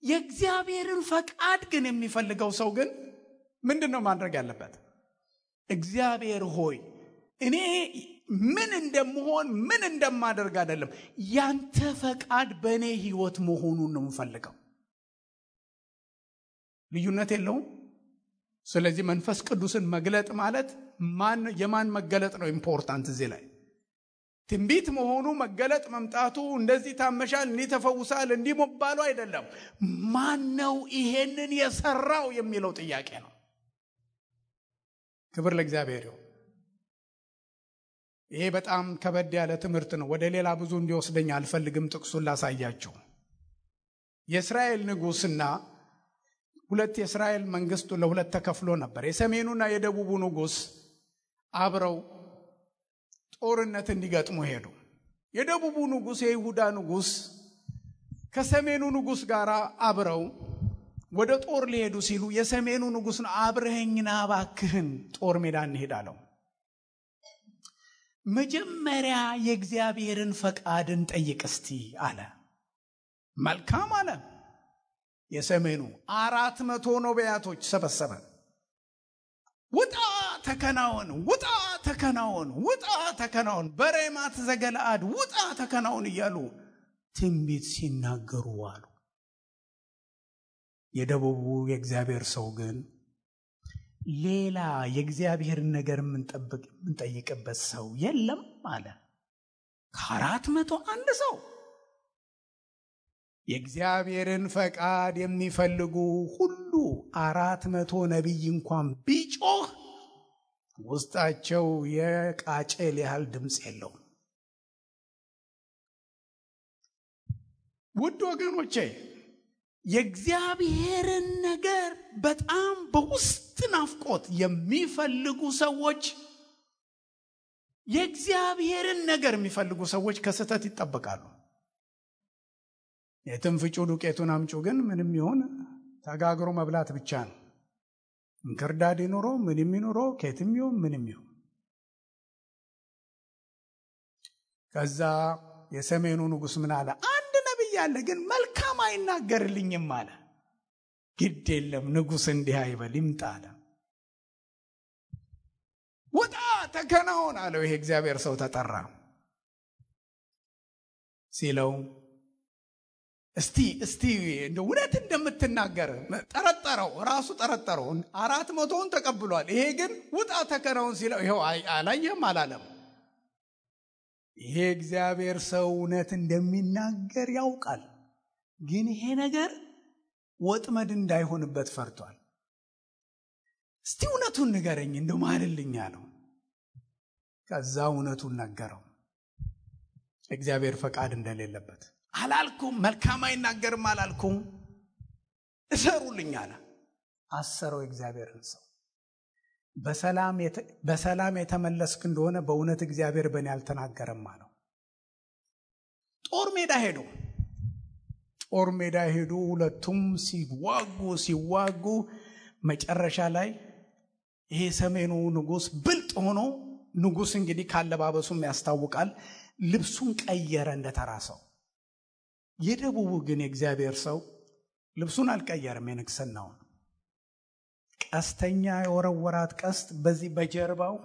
የእግዚአብሔርን ፈቃድ ግን የሚፈልገው ሰው ግን ምንድነው ማድረግ ያለበት? እግዚአብሔር ሆይ እኔ ምን እንደምሆን ምን እንደማደርግ አይደለም፣ ያንተ ፈቃድ በእኔ ህይወት መሆኑን ነው የምፈልገው። ልዩነት የለውም። ስለዚህ መንፈስ ቅዱስን መግለጥ ማለት የማን መገለጥ ነው ኢምፖርታንት እዚህ ላይ? ትንቢት መሆኑ መገለጥ መምጣቱ እንደዚህ ታመሻል እንዲህ ተፈውሳል እንዲህ መባሉ አይደለም። ማን ነው ይሄንን የሰራው የሚለው ጥያቄ ነው። ክብር ለእግዚአብሔር ይሁን። ይሄ በጣም ከበድ ያለ ትምህርት ነው። ወደ ሌላ ብዙ እንዲወስደኝ አልፈልግም። ጥቅሱን ላሳያችሁ። የእስራኤል ንጉስና ሁለት የእስራኤል መንግስቱ ለሁለት ተከፍሎ ነበር። የሰሜኑና የደቡቡ ንጉስ አብረው ጦርነት እንዲገጥሙ ሄዱ። የደቡቡ ንጉስ የይሁዳ ንጉስ ከሰሜኑ ንጉስ ጋር አብረው ወደ ጦር ሊሄዱ ሲሉ የሰሜኑ ንጉስ ነው አብረኸኝና እባክህን ጦር ሜዳ እንሄዳለው። መጀመሪያ የእግዚአብሔርን ፈቃድን ጠይቅ እስቲ አለ። መልካም አለ። የሰሜኑ 400 ነቢያቶች ሰበሰበ። ውጣ ተከናወን፣ ውጣ ተከናወን፣ ውጣ ተከናወን፣ በሬማት ዘገለአድ ውጣ ተከናወን እያሉ ትንቢት ሲናገሩ አሉ። የደቡቡ የእግዚአብሔር ሰው ግን ሌላ የእግዚአብሔርን ነገር የምንጠይቅበት ሰው የለም አለ። ከ401 ሰው የእግዚአብሔርን ፈቃድ የሚፈልጉ ሁሉ 400 ነቢይ እንኳን ቢጮህ ውስጣቸው የቃጭል ያህል ድምፅ የለውም። ውድ ወገኖቼ የእግዚአብሔርን ነገር በጣም በውስጥ ናፍቆት የሚፈልጉ ሰዎች የእግዚአብሔርን ነገር የሚፈልጉ ሰዎች ከስተት ይጠበቃሉ። የትም ፍጩ ዱቄቱን አምጩ ግን ምንም ይሁን ተጋግሮ መብላት ብቻ ነው። እንክርዳድ ይኑሮ ምንም ይኑሮ ከየትም ይሁን ምንም ይሁን። ከዛ የሰሜኑ ንጉስ ምን አለ? አንድ ነብይ አለ ግን መልካም አይናገርልኝም አለ። ግድ የለም ንጉስ እንዲህ አይበል ይምጣ አለ። ውጣ ተከናወን አለው። ይሄ እግዚአብሔር ሰው ተጠራ። ሲለው እስቲ እንደ እውነት እንደምትናገር ጠረጠረው። ራሱ ጠረጠረው። 400ን ተቀብሏል። ይሄ ግን ውጣ ተከናወን ሲለው ይሄው አላየም አላለም። ይሄ እግዚአብሔር ሰው እውነት እንደሚናገር ያውቃል። ግን ይሄ ነገር ወጥመድ እንዳይሆንበት ፈርቷል። እስቲ እውነቱን ንገረኝ እንደው ማልልኝ አለው። ከዛ እውነቱን ነገረው። እግዚአብሔር ፈቃድ እንደሌለበት አላልኩም፣ መልካም አይናገርም አላልኩም፣ እሰሩልኝ አለ። አሰረው እግዚአብሔርን ሰው። በሰላም የተመለስክ እንደሆነ በእውነት እግዚአብሔር በእኔ አልተናገረም አለው። ጦር ሜዳ ሄዱ። ሁለቱም ሲዋጉ መጨረሻ ላይ ይሄ ሰሜኑ ንጉስ ብልጥ ሆኖ ንጉስ እንግዲህ ካለባበሱም ያስታውቃል ልብሱን ቀየረ እንደተራሰው። የደቡቡ ግን የእግዚአብሔር ሰው ልብሱን አልቀየረም። የንግስናውን ቀስተኛ የወረወራት ቀስት በዚህ በጀርባው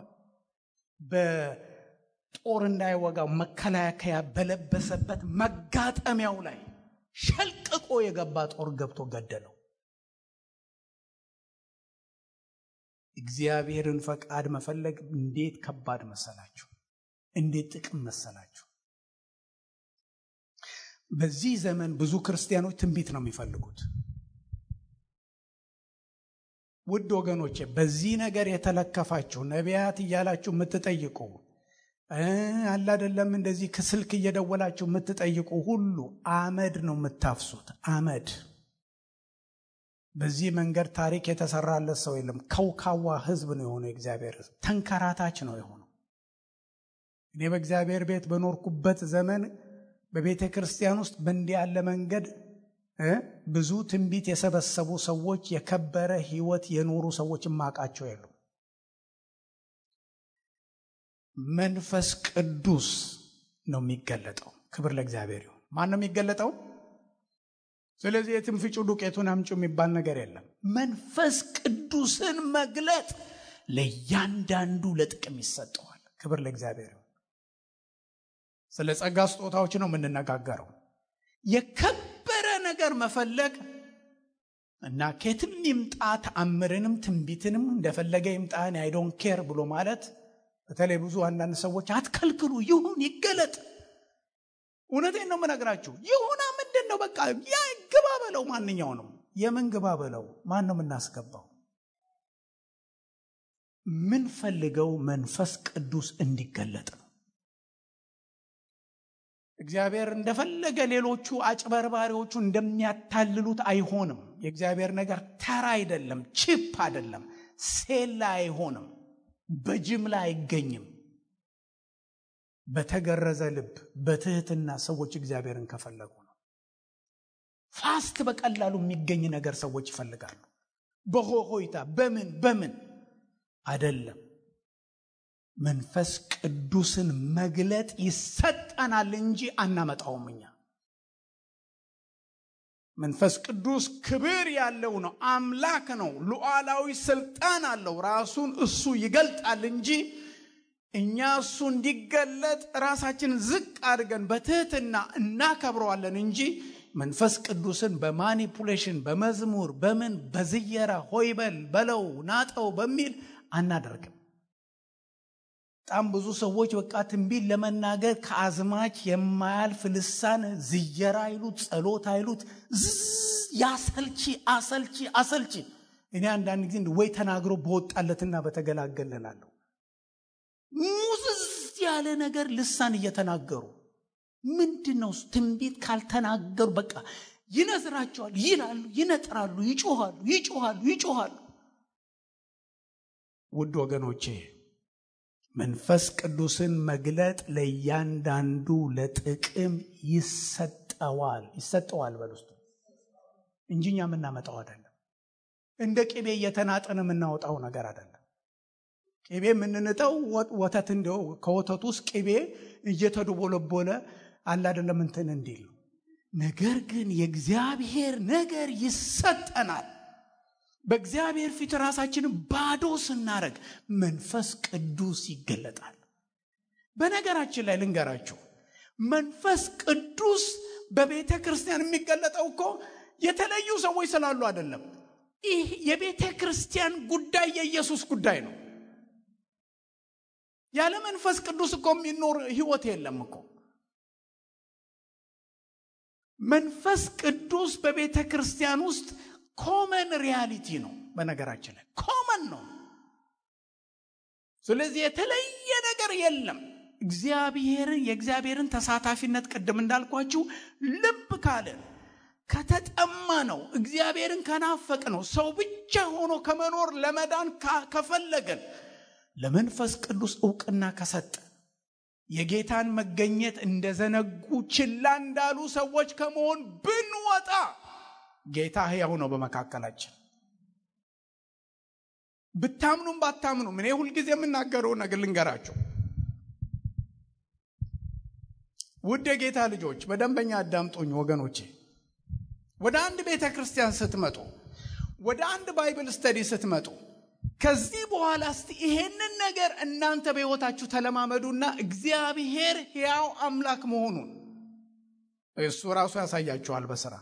በጦር እንዳይወጋው መከላከያ በለበሰበት መጋጠሚያው ላይ ሸልቅቆ የገባ ጦር ገብቶ ገደለው። እግዚአብሔርን ፈቃድ መፈለግ እንዴት ከባድ መሰላችሁ! እንዴት ጥቅም መሰላችሁ! በዚህ ዘመን ብዙ ክርስቲያኖች ትንቢት ነው የሚፈልጉት። ውድ ወገኖቼ በዚህ ነገር የተለከፋችሁ ነቢያት እያላችሁ የምትጠይቁ አለ አይደለም እንደዚህ ከስልክ እየደወላችሁ የምትጠይቁ ሁሉ አመድ ነው የምታፍሱት። አመድ። በዚህ መንገድ ታሪክ የተሰራለት ሰው የለም። ከውካዋ ህዝብ ነው የሆነው። እግዚአብሔር ተንከራታች ነው የሆነው። እኔ በእግዚአብሔር ቤት በኖርኩበት ዘመን በቤተ ክርስቲያን ውስጥ በእንዲህ ያለ መንገድ ብዙ ትንቢት የሰበሰቡ ሰዎች፣ የከበረ ሕይወት የኖሩ ሰዎች ማቃቸው የሉ። መንፈስ ቅዱስ ነው የሚገለጠው። ክብር ለእግዚአብሔር ይሁን። ማን ነው የሚገለጠው? ስለዚህ የትንፍጩ ዱቄቱን አምጪ የሚባል ነገር የለም። መንፈስ ቅዱስን መግለጥ ለእያንዳንዱ ለጥቅም ይሰጠዋል። ክብር ለእግዚአብሔር ይሁን። ስለ ጸጋ ስጦታዎች ነው የምንነጋገረው። የከበረ ነገር መፈለግ እና ከየትም ይምጣ ተአምርንም ትንቢትንም እንደፈለገ ይምጣን አይ ዶንት ኬር ብሎ ማለት፣ በተለይ ብዙ አንዳንድ ሰዎች አትከልክሉ፣ ይሁን ይገለጥ። እውነቴን ነው የምነግራችሁ። ይሁና ምንድን ነው በቃ ያ ግባ በለው። ማንኛው ነው የምን ግባ በለው? ማን ነው የምናስገባው? ምን ፈልገው መንፈስ ቅዱስ እንዲገለጥ ነው። እግዚአብሔር እንደፈለገ ሌሎቹ አጭበርባሪዎቹ እንደሚያታልሉት አይሆንም። የእግዚአብሔር ነገር ተራ አይደለም፣ ቺፕ አይደለም፣ ሴላ አይሆንም፣ በጅምላ አይገኝም። በተገረዘ ልብ በትህትና ሰዎች እግዚአብሔርን ከፈለጉ ነው። ፋስት በቀላሉ የሚገኝ ነገር ሰዎች ይፈልጋሉ። በሆይታ በምን አይደለም። መንፈስ ቅዱስን መግለጥ ይሰጠናል እንጂ አናመጣውም እኛ። መንፈስ ቅዱስ ክብር ያለው ነው፣ አምላክ ነው፣ ሉዓላዊ ስልጣን አለው። ራሱን እሱ ይገልጣል እንጂ እኛ እሱ እንዲገለጥ ራሳችን ዝቅ አድርገን በትህትና እናከብረዋለን እንጂ መንፈስ ቅዱስን በማኒፑሌሽን በመዝሙር በምን በዝየራ ሆይበል በለው ናጠው በሚል አናደርግም። በጣም ብዙ ሰዎች በቃ ትንቢት ለመናገር ከአዝማች የማያልፍ ልሳን ዝየራ አይሉት፣ ጸሎት አይሉት፣ አሰልቺ። እኔ አንዳንድ ጊዜ ወይ ተናግሮ በወጣለትና በተገላገለናለሁ። ሙዝዝ ያለ ነገር ልሳን እየተናገሩ ምንድነው? ትንቢት ካልተናገሩ በቃ ይነዝራቸዋል፣ ይላሉ፣ ይነጥራሉ፣ ይጮሃሉ። ውድ ወገኖቼ መንፈስ ቅዱስን መግለጥ ለእያንዳንዱ ለጥቅም ይሰጠዋል በልስቱ እንጂ እኛ የምናመጣው አይደለም። እንደ ቅቤ እየተናጠን የምናወጣው ነገር አይደለም። ቅቤ የምንንጠው ወተት እንደው ከወተቱ ውስጥ ቅቤ እየተደቦለቦለ አለ አይደለም እንትን እንዲል። ነገር ግን የእግዚአብሔር ነገር ይሰጠናል። በእግዚአብሔር ፊት ራሳችንን ባዶ ስናረግ መንፈስ ቅዱስ ይገለጣል። በነገራችን ላይ ልንገራችሁ፣ መንፈስ ቅዱስ በቤተ ክርስቲያን የሚገለጠው እኮ የተለዩ ሰዎች ስላሉ አይደለም። ይህ የቤተ ክርስቲያን ጉዳይ የኢየሱስ ጉዳይ ነው። ያለ መንፈስ ቅዱስ እኮ የሚኖር ህይወት የለም እኮ። መንፈስ ቅዱስ በቤተ ክርስቲያን ውስጥ ኮመን ሪያሊቲ ነው። በነገራችን ላይ ኮመን ነው። ስለዚህ የተለየ ነገር የለም። የእግዚአብሔርን ተሳታፊነት ቅድም እንዳልኳችሁ ልብ ካለን ከተጠማ ነው፣ እግዚአብሔርን ከናፈቅ ነው፣ ሰው ብቻ ሆኖ ከመኖር ለመዳን ከፈለገን ለመንፈስ ቅዱስ ዕውቅና ከሰጠ የጌታን መገኘት እንደዘነጉ ችላ እንዳሉ ሰዎች ከመሆን ብንወጣ ጌታ ሕያው ነው በመካከላችን። ብታምኑም ባታምኑም እኔ ሁልጊዜ የምናገረው ነገር ልንገራችሁ። ውድ የጌታ ልጆች በደንበኛ አዳምጡኝ ወገኖቼ። ወደ አንድ ቤተ ክርስቲያን ስትመጡ፣ ወደ አንድ ባይብል ስተዲ ስትመጡ ከዚህ በኋላ እስቲ ይሄንን ነገር እናንተ በሕይወታችሁ ተለማመዱና እግዚአብሔር ሕያው አምላክ መሆኑን እሱ ራሱ ያሳያችኋል በሥራ።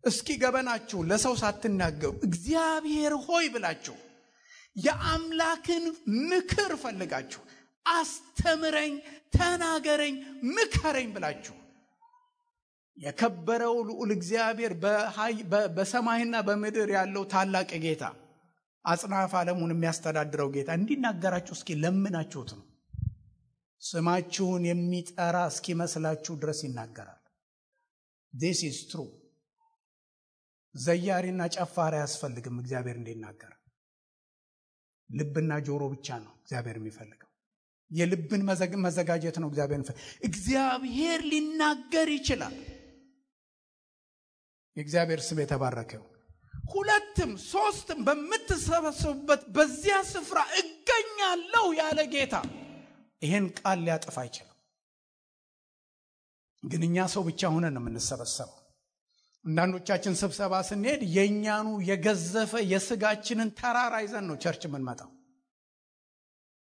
እስኪ ገበናችሁ ለሰው ሳትናገሩ እግዚአብሔር ሆይ ብላችሁ የአምላክን ምክር ፈልጋችሁ አስተምረኝ፣ ተናገረኝ፣ ምከረኝ ብላችሁ የከበረው ልዑል እግዚአብሔር በሰማይና በምድር ያለው ታላቅ ጌታ አጽናፈ ዓለሙን የሚያስተዳድረው ጌታ እንዲናገራችሁ እስኪ ለምናችሁት ነው። ስማችሁን የሚጠራ እስኪመስላችሁ ድረስ ይናገራል። this is true። ዘያሪና ጨፋሪ አያስፈልግም እግዚአብሔር እንዲናገር። ልብና ጆሮ ብቻ ነው እግዚአብሔር የሚፈልገው። የልብን መዘጋጀት ነው። እግዚአብሔር ሊናገር ይችላል። የእግዚአብሔር ስም የተባረከው። ሁለትም ሶስትም በምትሰበሰቡበት በዚያ ስፍራ እገኛለሁ ያለ ጌታ ይሄን ቃል ሊያጠፋ አይችልም። ግን እኛ ሰው ብቻ ሆነን ነው የምንሰበሰበው። አንዳንዶቻችን ስብሰባ ስንሄድ የኛኑ የገዘፈ የስጋችንን ተራራ ይዘን ነው ቸርች የምንመጣው።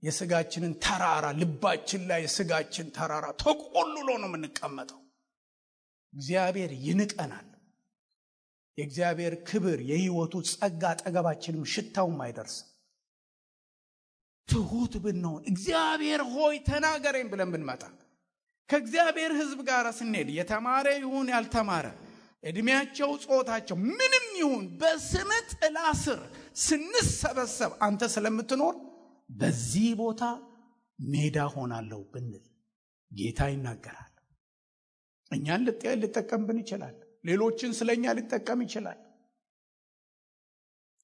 የስጋችንን ተራራ ልባችን ላይ የስጋችን ተራራ ተቆልሎ ነው የምንቀመጠው። እግዚአብሔር ይንቀናል። የእግዚአብሔር ክብር የሕይወቱ ጸጋ አጠገባችንም ሽታውም አይደርስም። ትሁት ብንሆን እግዚአብሔር ሆይ ተናገረኝ ብለን ብንመጣ ከእግዚአብሔር ሕዝብ ጋር ስንሄድ የተማረ ይሁን ያልተማረ እድሜያቸው ጾታቸው ምንም ይሁን በስም ጥላ ስር ስንሰበሰብ አንተ ስለምትኖር በዚህ ቦታ ሜዳ ሆናለሁ ብንል ጌታ ይናገራል። እኛን ሊጠቀምብን ይችላል። ሌሎችን ስለኛ ሊጠቀም ይችላል።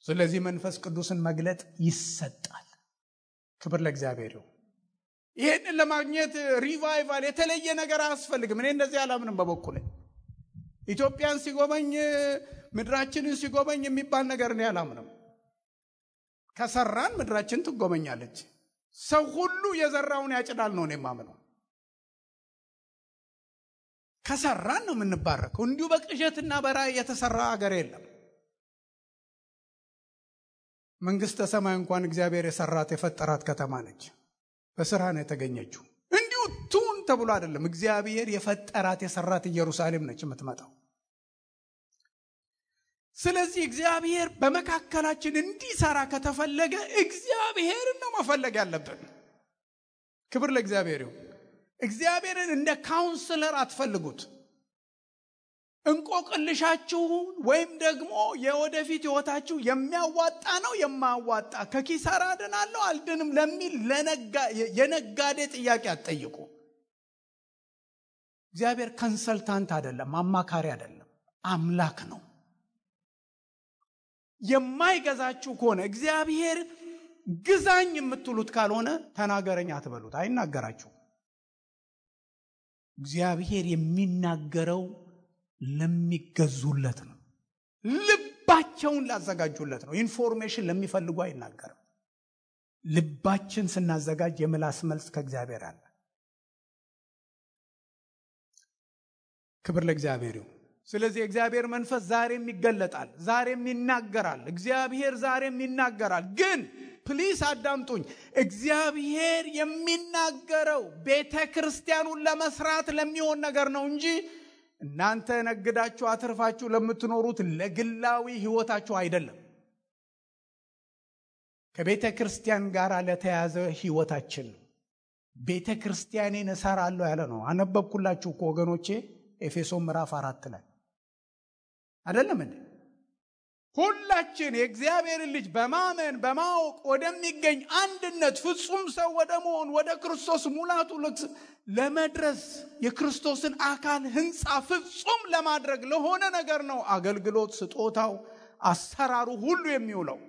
ስለዚህ መንፈስ ቅዱስን መግለጥ ይሰጣል። ክብር ለእግዚአብሔር ይሁን። ይሄንን ለማግኘት ሪቫይቫል የተለየ ነገር አያስፈልግም። እኔ እንደዚህ አላምንም በበኩሌ። ኢትዮጵያን ሲጎበኝ ምድራችንን ሲጎበኝ የሚባል ነገር ነው አላምንም። ከሰራን ምድራችን ትጎበኛለች። ሰው ሁሉ የዘራውን ያጭዳል ነው እኔ የማምነው። ከሰራን ነው የምንባረከው። እንዲሁ በቅዠትና በራእይ የተሰራ ሀገር የለም። መንግስተ ሰማይ እንኳን እግዚአብሔር የሰራት የፈጠራት ከተማ ነች። በስራ ነው የተገኘችው። እንዲሁ ቱን ተብሎ አይደለም። እግዚአብሔር የፈጠራት የሰራት ኢየሩሳሌም ነች የምትመጣው። ስለዚህ እግዚአብሔር በመካከላችን እንዲሰራ ከተፈለገ እግዚአብሔርን ነው መፈለግ ያለብን። ክብር ለእግዚአብሔር ይሁን። እግዚአብሔርን እንደ ካውንስለር አትፈልጉት። እንቆቅልሻችሁን ወይም ደግሞ የወደፊት ህይወታችሁ የሚያዋጣ ነው የማያዋጣ ከኪሳራ አድናለሁ አልድንም ለሚል የነጋዴ ጥያቄ አትጠይቁ። እግዚአብሔር ኮንሰልታንት አይደለም፣ አማካሪ አይደለም፣ አምላክ ነው። የማይገዛችሁ ከሆነ እግዚአብሔር ግዛኝ የምትሉት ካልሆነ ተናገረኝ አትበሉት፣ አይናገራችሁ። እግዚአብሔር የሚናገረው ለሚገዙለት ነው። ልባቸውን ላዘጋጁለት ነው። ኢንፎርሜሽን ለሚፈልጉ አይናገርም። ልባችን ስናዘጋጅ የምላስ መልስ ከእግዚአብሔር አለ። ክብር ለእግዚአብሔር ይሁን። ስለዚህ እግዚአብሔር መንፈስ ዛሬም ይገለጣል፣ ዛሬም ይናገራል። እግዚአብሔር ዛሬም ይናገራል። ግን ፕሊስ አዳምጡኝ። እግዚአብሔር የሚናገረው ቤተክርስቲያኑን ለመስራት ለሚሆን ነገር ነው እንጂ እናንተ ነግዳችሁ አትርፋችሁ ለምትኖሩት ለግላዊ ህይወታችሁ አይደለም። ከቤተክርስቲያን ጋር ለተያዘ ህይወታችን ነው። ቤተክርስቲያኔን እሰራለሁ ያለ ነው። አነበብኩላችሁ ወገኖቼ ኤፌሶን ምዕራፍ 4 ላይ አይደለም እንዴ? ሁላችን የእግዚአብሔር ልጅ በማመን በማወቅ ወደሚገኝ አንድነት ፍጹም ሰው ወደ መሆን ወደ ክርስቶስ ሙላቱ ለመድረስ የክርስቶስን አካል ህንጻ ፍጹም ለማድረግ ለሆነ ነገር ነው አገልግሎት፣ ስጦታው፣ አሰራሩ ሁሉ የሚውለው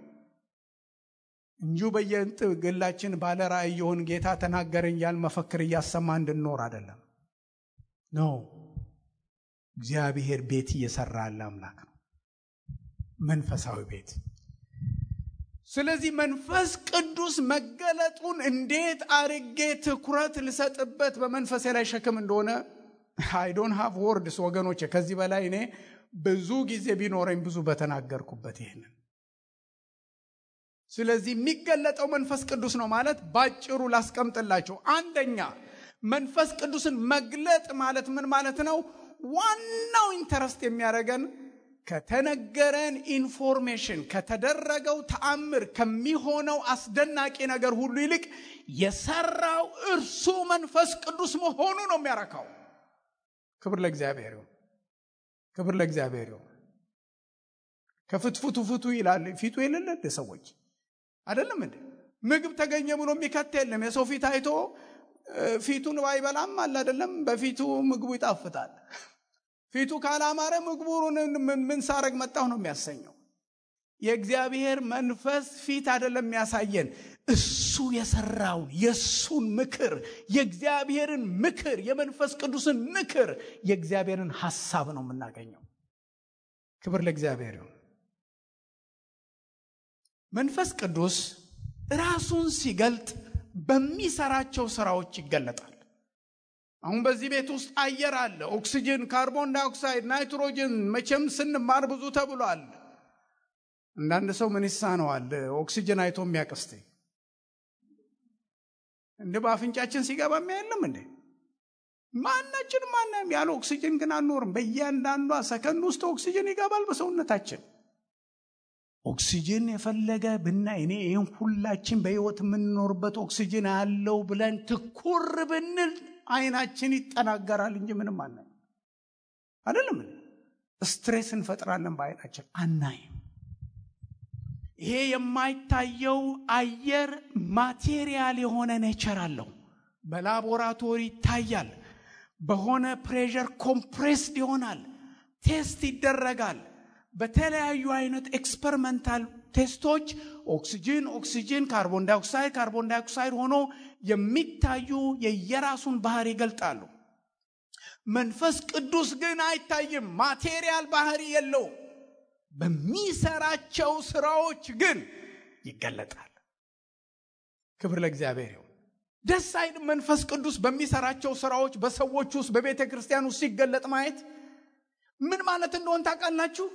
እንጂ በየግላችን ባለ ራእይ የሆን ጌታ ተናገረኝ ያል መፈክር እያሰማ እንድንኖር አይደለም ነው። እግዚአብሔር ቤት እየሰራ ያለ አምላክ ነው፣ መንፈሳዊ ቤት። ስለዚህ መንፈስ ቅዱስ መገለጡን እንዴት አርጌ ትኩረት ልሰጥበት በመንፈሴ ላይ ሸክም እንደሆነ I don't have words ወገኖቼ። ከዚህ በላይ እኔ ብዙ ጊዜ ቢኖረኝ ብዙ በተናገርኩበት ይሄንን። ስለዚህ የሚገለጠው መንፈስ ቅዱስ ነው ማለት ባጭሩ ላስቀምጥላችሁ። አንደኛ መንፈስ ቅዱስን መግለጥ ማለት ምን ማለት ነው? ዋናው ኢንተረስት የሚያደርገን ከተነገረን ኢንፎርሜሽን፣ ከተደረገው ተአምር፣ ከሚሆነው አስደናቂ ነገር ሁሉ ይልቅ የሰራው እርሱ መንፈስ ቅዱስ መሆኑ ነው የሚያረካው። ክብር ለእግዚአብሔር ይሁን። ክብር ለእግዚአብሔር ይሁን። ከፍትፍቱ ፍቱ ይላል ፊቱ የሌለ ሰዎች አይደለም እንዴ? ምግብ ተገኘ ብሎ የሚከት የለም። የሰው ፊት አይቶ ፊቱን ባይበላም አለ አይደለም፣ በፊቱ ምግቡ ይጣፍጣል። ፊቱ ካላማረ ምግቡን ምን ሳረግ መጣሁ ነው የሚያሰኘው። የእግዚአብሔር መንፈስ ፊት አይደለም የሚያሳየን፣ እሱ የሰራውን የሱን ምክር የእግዚአብሔርን ምክር የመንፈስ ቅዱስን ምክር የእግዚአብሔርን ሐሳብ ነው የምናገኘው። ክብር ለእግዚአብሔር ይሁን። መንፈስ ቅዱስ ራሱን ሲገልጥ በሚሰራቸው ስራዎች ይገለጣል። አሁን በዚህ ቤት ውስጥ አየር አለ፣ ኦክሲጅን፣ ካርቦን ዳይኦክሳይድ፣ ናይትሮጅን። መቼም ስንማር ብዙ ተብሏል። አንዳንድ ሰው ምን ይሳነዋል ኦክሲጅን አይቶ የሚያቀስተ እንደ በአፍንጫችን ሲገባ የሚያየለም እንዴ? ማንም ያለ ኦክሲጅን ግን አንኖርም። በእያንዳንዷ ሰከንድ ውስጥ ኦክሲጅን ይገባል በሰውነታችን። ኦክሲጅን የፈለገ ብናይ እኔ ይህን ሁላችን በህይወት የምንኖርበት ኦክሲጅን አለው ብለን ትኩር ብንል አይናችን ይጠናገራል እንጂ ምንም አናይም። አይደለም? ስትሬስ እንፈጥራለን በአይናችን አናይም። ይሄ የማይታየው አየር ማቴሪያል የሆነ ኔቸር አለው። በላቦራቶሪ ይታያል። በሆነ ፕሬሸር ኮምፕሬስድ ይሆናል፣ ቴስት ይደረጋል። በተለያዩ አይነት ኤክስፐሪመንታል ቴስቶች ኦክሲጅን፣ ካርቦን ዳይኦክሳይድ ሆኖ የሚታዩ የየራሱን ባህሪ ይገልጣሉ። መንፈስ ቅዱስ ግን አይታይም፣ ማቴሪያል ባህሪ የለውም። በሚሰራቸው ስራዎች ግን ይገለጣል። ክብር ለእግዚአብሔር ይሁን። ደስ አይልም? መንፈስ ቅዱስ በሚሰራቸው ስራዎች በሰዎች ውስጥ በቤተ ክርስቲያን ውስጥ ሲገለጥ ማየት ምን ማለት እንደሆነ ታውቃላችሁ?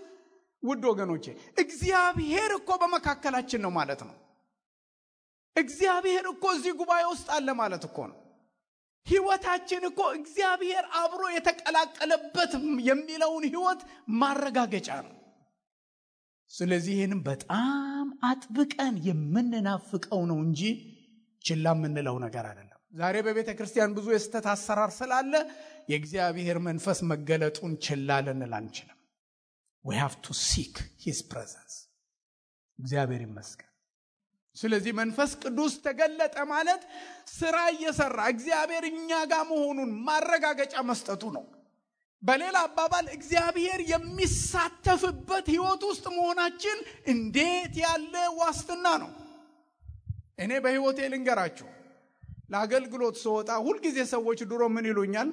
ውድ ወገኖቼ እግዚአብሔር እኮ በመካከላችን ነው ማለት ነው። እግዚአብሔር እኮ እዚህ ጉባኤ ውስጥ አለ ማለት እኮ ነው። ህይወታችን እኮ እግዚአብሔር አብሮ የተቀላቀለበት የሚለውን ህይወት ማረጋገጫ ነው። ስለዚህ ይህንን በጣም አጥብቀን የምንናፍቀው ነው እንጂ ችላ የምንለው ነገር አይደለም። ዛሬ በቤተ ክርስቲያን ብዙ የስተት አሰራር ስላለ የእግዚአብሔር መንፈስ መገለጡን ችላ ልንል አንችልም። we have to seek his presence። እግዚአብሔር ይመስገን። ስለዚህ መንፈስ ቅዱስ ተገለጠ ማለት ስራ እየሰራ እግዚአብሔር እኛ ጋር መሆኑን ማረጋገጫ መስጠቱ ነው። በሌላ አባባል እግዚአብሔር የሚሳተፍበት ህይወት ውስጥ መሆናችን እንዴት ያለ ዋስትና ነው! እኔ በህይወቴ ልንገራችሁ፣ ለአገልግሎት ስወጣ ሁልጊዜ ሰዎች ድሮ ምን ይሉኛል?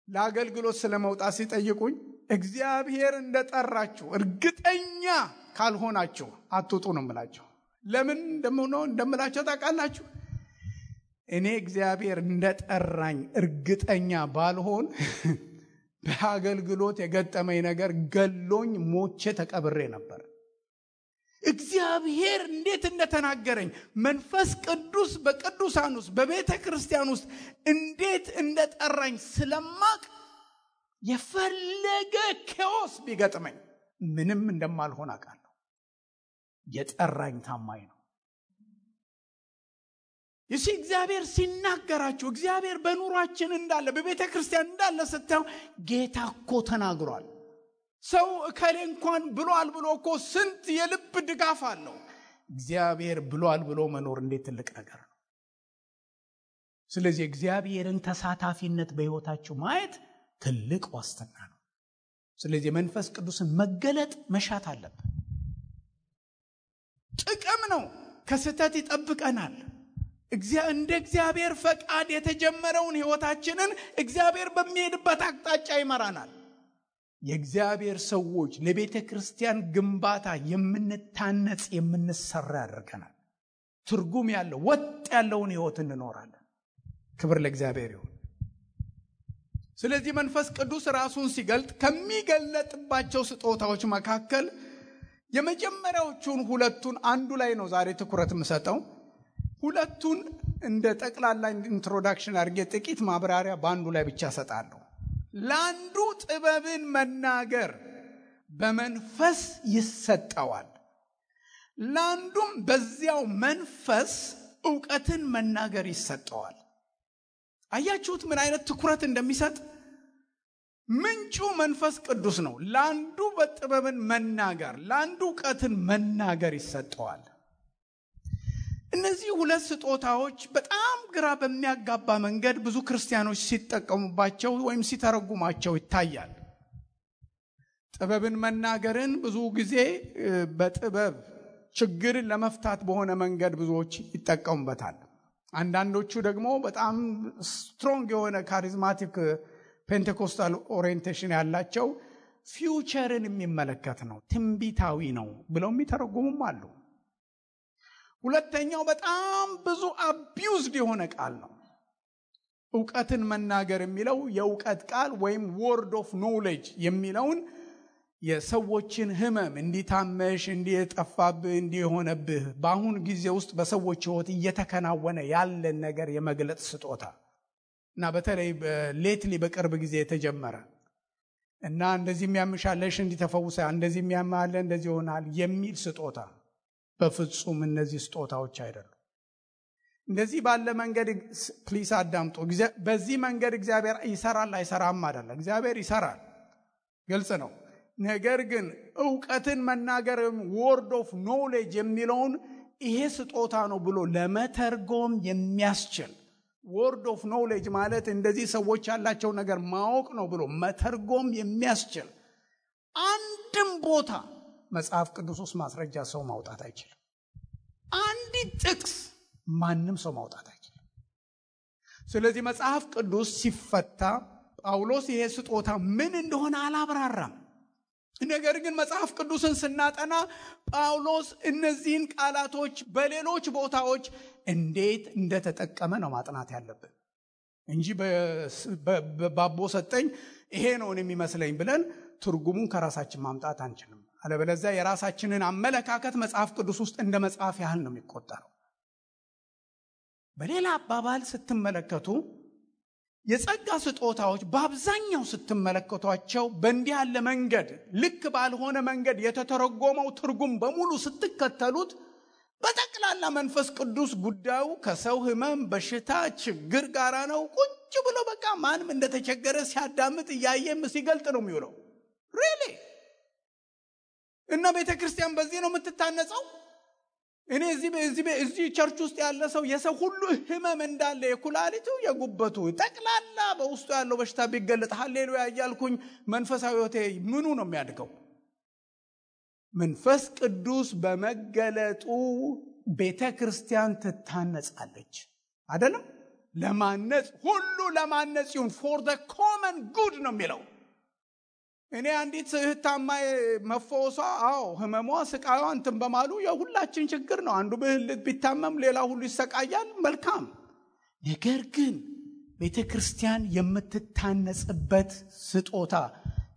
ለአገልግሎት ስለመውጣት ሲጠይቁኝ እግዚአብሔር እንደጠራችሁ እርግጠኛ ካልሆናችሁ አትውጡ ነው የምላቸው። ለምን እንደምላቸው ታውቃላችሁ? እኔ እግዚአብሔር እንደጠራኝ እርግጠኛ ባልሆን በአገልግሎት የገጠመኝ ነገር ገሎኝ ሞቼ ተቀብሬ ነበር። እግዚአብሔር እንዴት እንደተናገረኝ መንፈስ ቅዱስ በቅዱሳን ውስጥ በቤተ ክርስቲያን ውስጥ እንዴት እንደጠራኝ ስለማቅ የፈለገ ኬዎስ ቢገጥመኝ ምንም እንደማልሆን አውቃለሁ። የጠራኝ ታማኝ ነው። ይህ እግዚአብሔር ሲናገራችሁ እግዚአብሔር በኑሯችን እንዳለ በቤተ ክርስቲያን እንዳለ ስታዩ ጌታ እኮ ተናግሯል። ሰው እከሌ እንኳን ብሏል ብሎ እኮ ስንት የልብ ድጋፍ አለው። እግዚአብሔር ብሏል ብሎ መኖር እንዴት ትልቅ ነገር ነው። ስለዚህ እግዚአብሔርን ተሳታፊነት በሕይወታችሁ ማየት ትልቅ ዋስትና ነው። ስለዚህ መንፈስ ቅዱስን መገለጥ መሻት አለብን። ጥቅም ነው። ከስተት ይጠብቀናል። እንደ እግዚአብሔር ፈቃድ የተጀመረውን ሕይወታችንን እግዚአብሔር በሚሄድበት አቅጣጫ ይመራናል። የእግዚአብሔር ሰዎች ለቤተ ክርስቲያን ግንባታ የምንታነጽ የምንሰራ ያደርገናል። ትርጉም ያለው ወጥ ያለውን ሕይወት እንኖራለን። ክብር ለእግዚአብሔር ይሁን። ስለዚህ መንፈስ ቅዱስ ራሱን ሲገልጥ ከሚገለጥባቸው ስጦታዎች መካከል የመጀመሪያዎቹን ሁለቱን አንዱ ላይ ነው ዛሬ ትኩረት የምሰጠው። ሁለቱን እንደ ጠቅላላ ኢንትሮዳክሽን አድርጌ ጥቂት ማብራሪያ በአንዱ ላይ ብቻ ሰጣለሁ። ለአንዱ ጥበብን መናገር በመንፈስ ይሰጠዋል፣ ለአንዱም በዚያው መንፈስ ዕውቀትን መናገር ይሰጠዋል። አያችሁት ምን አይነት ትኩረት እንደሚሰጥ? ምንጩ መንፈስ ቅዱስ ነው። ለአንዱ በጥበብን መናገር፣ ለአንዱ ዕውቀትን መናገር ይሰጠዋል። እነዚህ ሁለት ስጦታዎች በጣም ግራ በሚያጋባ መንገድ ብዙ ክርስቲያኖች ሲጠቀሙባቸው ወይም ሲተረጉማቸው ይታያል። ጥበብን መናገርን ብዙ ጊዜ በጥበብ ችግርን ለመፍታት በሆነ መንገድ ብዙዎች ይጠቀሙበታል። አንዳንዶቹ ደግሞ በጣም ስትሮንግ የሆነ ካሪዝማቲክ ፔንቴኮስታል ኦሪየንቴሽን ያላቸው ፊውቸርን የሚመለከት ነው፣ ትንቢታዊ ነው ብለው የሚተረጉሙም አሉ። ሁለተኛው በጣም ብዙ አቢዩዝድ የሆነ ቃል ነው። ዕውቀትን መናገር የሚለው የዕውቀት ቃል ወይም ወርድ ኦፍ ኖሌጅ የሚለውን የሰዎችን ህመም እንዲታመሽ እንዲጠፋብህ እንዲሆነብህ በአሁን ጊዜ ውስጥ በሰዎች ህይወት እየተከናወነ ያለን ነገር የመግለጥ ስጦታ እና በተለይ ሌትሊ በቅርብ ጊዜ የተጀመረ እና እንደዚህ የሚያምሻለሽ እንዲተፈውሳ እንደዚህ የሚያማለ እንደዚህ ይሆናል የሚል ስጦታ በፍጹም እነዚህ ስጦታዎች አይደሉም። እንደዚህ ባለ መንገድ ፕሊስ አዳምጡ። በዚህ መንገድ እግዚአብሔር ይሰራል አይሰራም አይደለም። እግዚአብሔር ይሰራል፣ ግልጽ ነው። ነገር ግን ዕውቀትን መናገር ወርድ ኦፍ ኖሌጅ የሚለውን ይሄ ስጦታ ነው ብሎ ለመተርጎም የሚያስችል ወርድ ኦፍ ኖሌጅ ማለት እንደዚህ ሰዎች ያላቸው ነገር ማወቅ ነው ብሎ መተርጎም የሚያስችል አንድም ቦታ መጽሐፍ ቅዱስ ውስጥ ማስረጃ ሰው ማውጣት አይችልም። አንዲት ጥቅስ ማንም ሰው ማውጣት አይችልም። ስለዚህ መጽሐፍ ቅዱስ ሲፈታ ጳውሎስ ይሄ ስጦታ ምን እንደሆነ አላብራራም። ነገር ግን መጽሐፍ ቅዱስን ስናጠና ጳውሎስ እነዚህን ቃላቶች በሌሎች ቦታዎች እንዴት እንደተጠቀመ ነው ማጥናት ያለብን እንጂ ባቦ ሰጠኝ ይሄ ነው የሚመስለኝ ብለን ትርጉሙን ከራሳችን ማምጣት አንችልም። አለበለዚያ የራሳችንን አመለካከት መጽሐፍ ቅዱስ ውስጥ እንደ መጽሐፍ ያህል ነው የሚቆጠረው። በሌላ አባባል ስትመለከቱ የጸጋ ስጦታዎች በአብዛኛው ስትመለከቷቸው በእንዲህ ያለ መንገድ ልክ ባልሆነ መንገድ የተተረጎመው ትርጉም በሙሉ ስትከተሉት በጠቅላላ መንፈስ ቅዱስ ጉዳዩ ከሰው ህመም፣ በሽታ፣ ችግር ጋራ ነው። ቁጭ ብሎ በቃ ማንም እንደተቸገረ ሲያዳምጥ እያየም ሲገልጥ ነው የሚውለው። ሪሊ እና ቤተክርስቲያን በዚህ ነው የምትታነጸው። እኔ እዚህ ቸርች ውስጥ ያለ ሰው የሰው ሁሉ ህመም እንዳለ የኩላሊቱ የጉበቱ ጠቅላላ በውስጡ ያለው በሽታ ቢገለጥ ሃሌሉያ እያልኩኝ መንፈሳዊ ህይወቴ ምኑ ነው የሚያድገው? መንፈስ ቅዱስ በመገለጡ ቤተክርስቲያን ትታነጻለች አይደለም? ለማነጽ ሁሉ ለማነጽ ይሁን for the common good ነው የሚለው። እኔ አንዲት እህታማ መፈወሷ ህመሟ ስቃዩዋ እንትን በማሉ የሁላችን ችግር ነው። አንዱ ብልት ቢታመም ሌላ ሁሉ ይሰቃያል። መልካም። ነገር ግን ቤተክርስቲያን የምትታነጽበት ስጦታ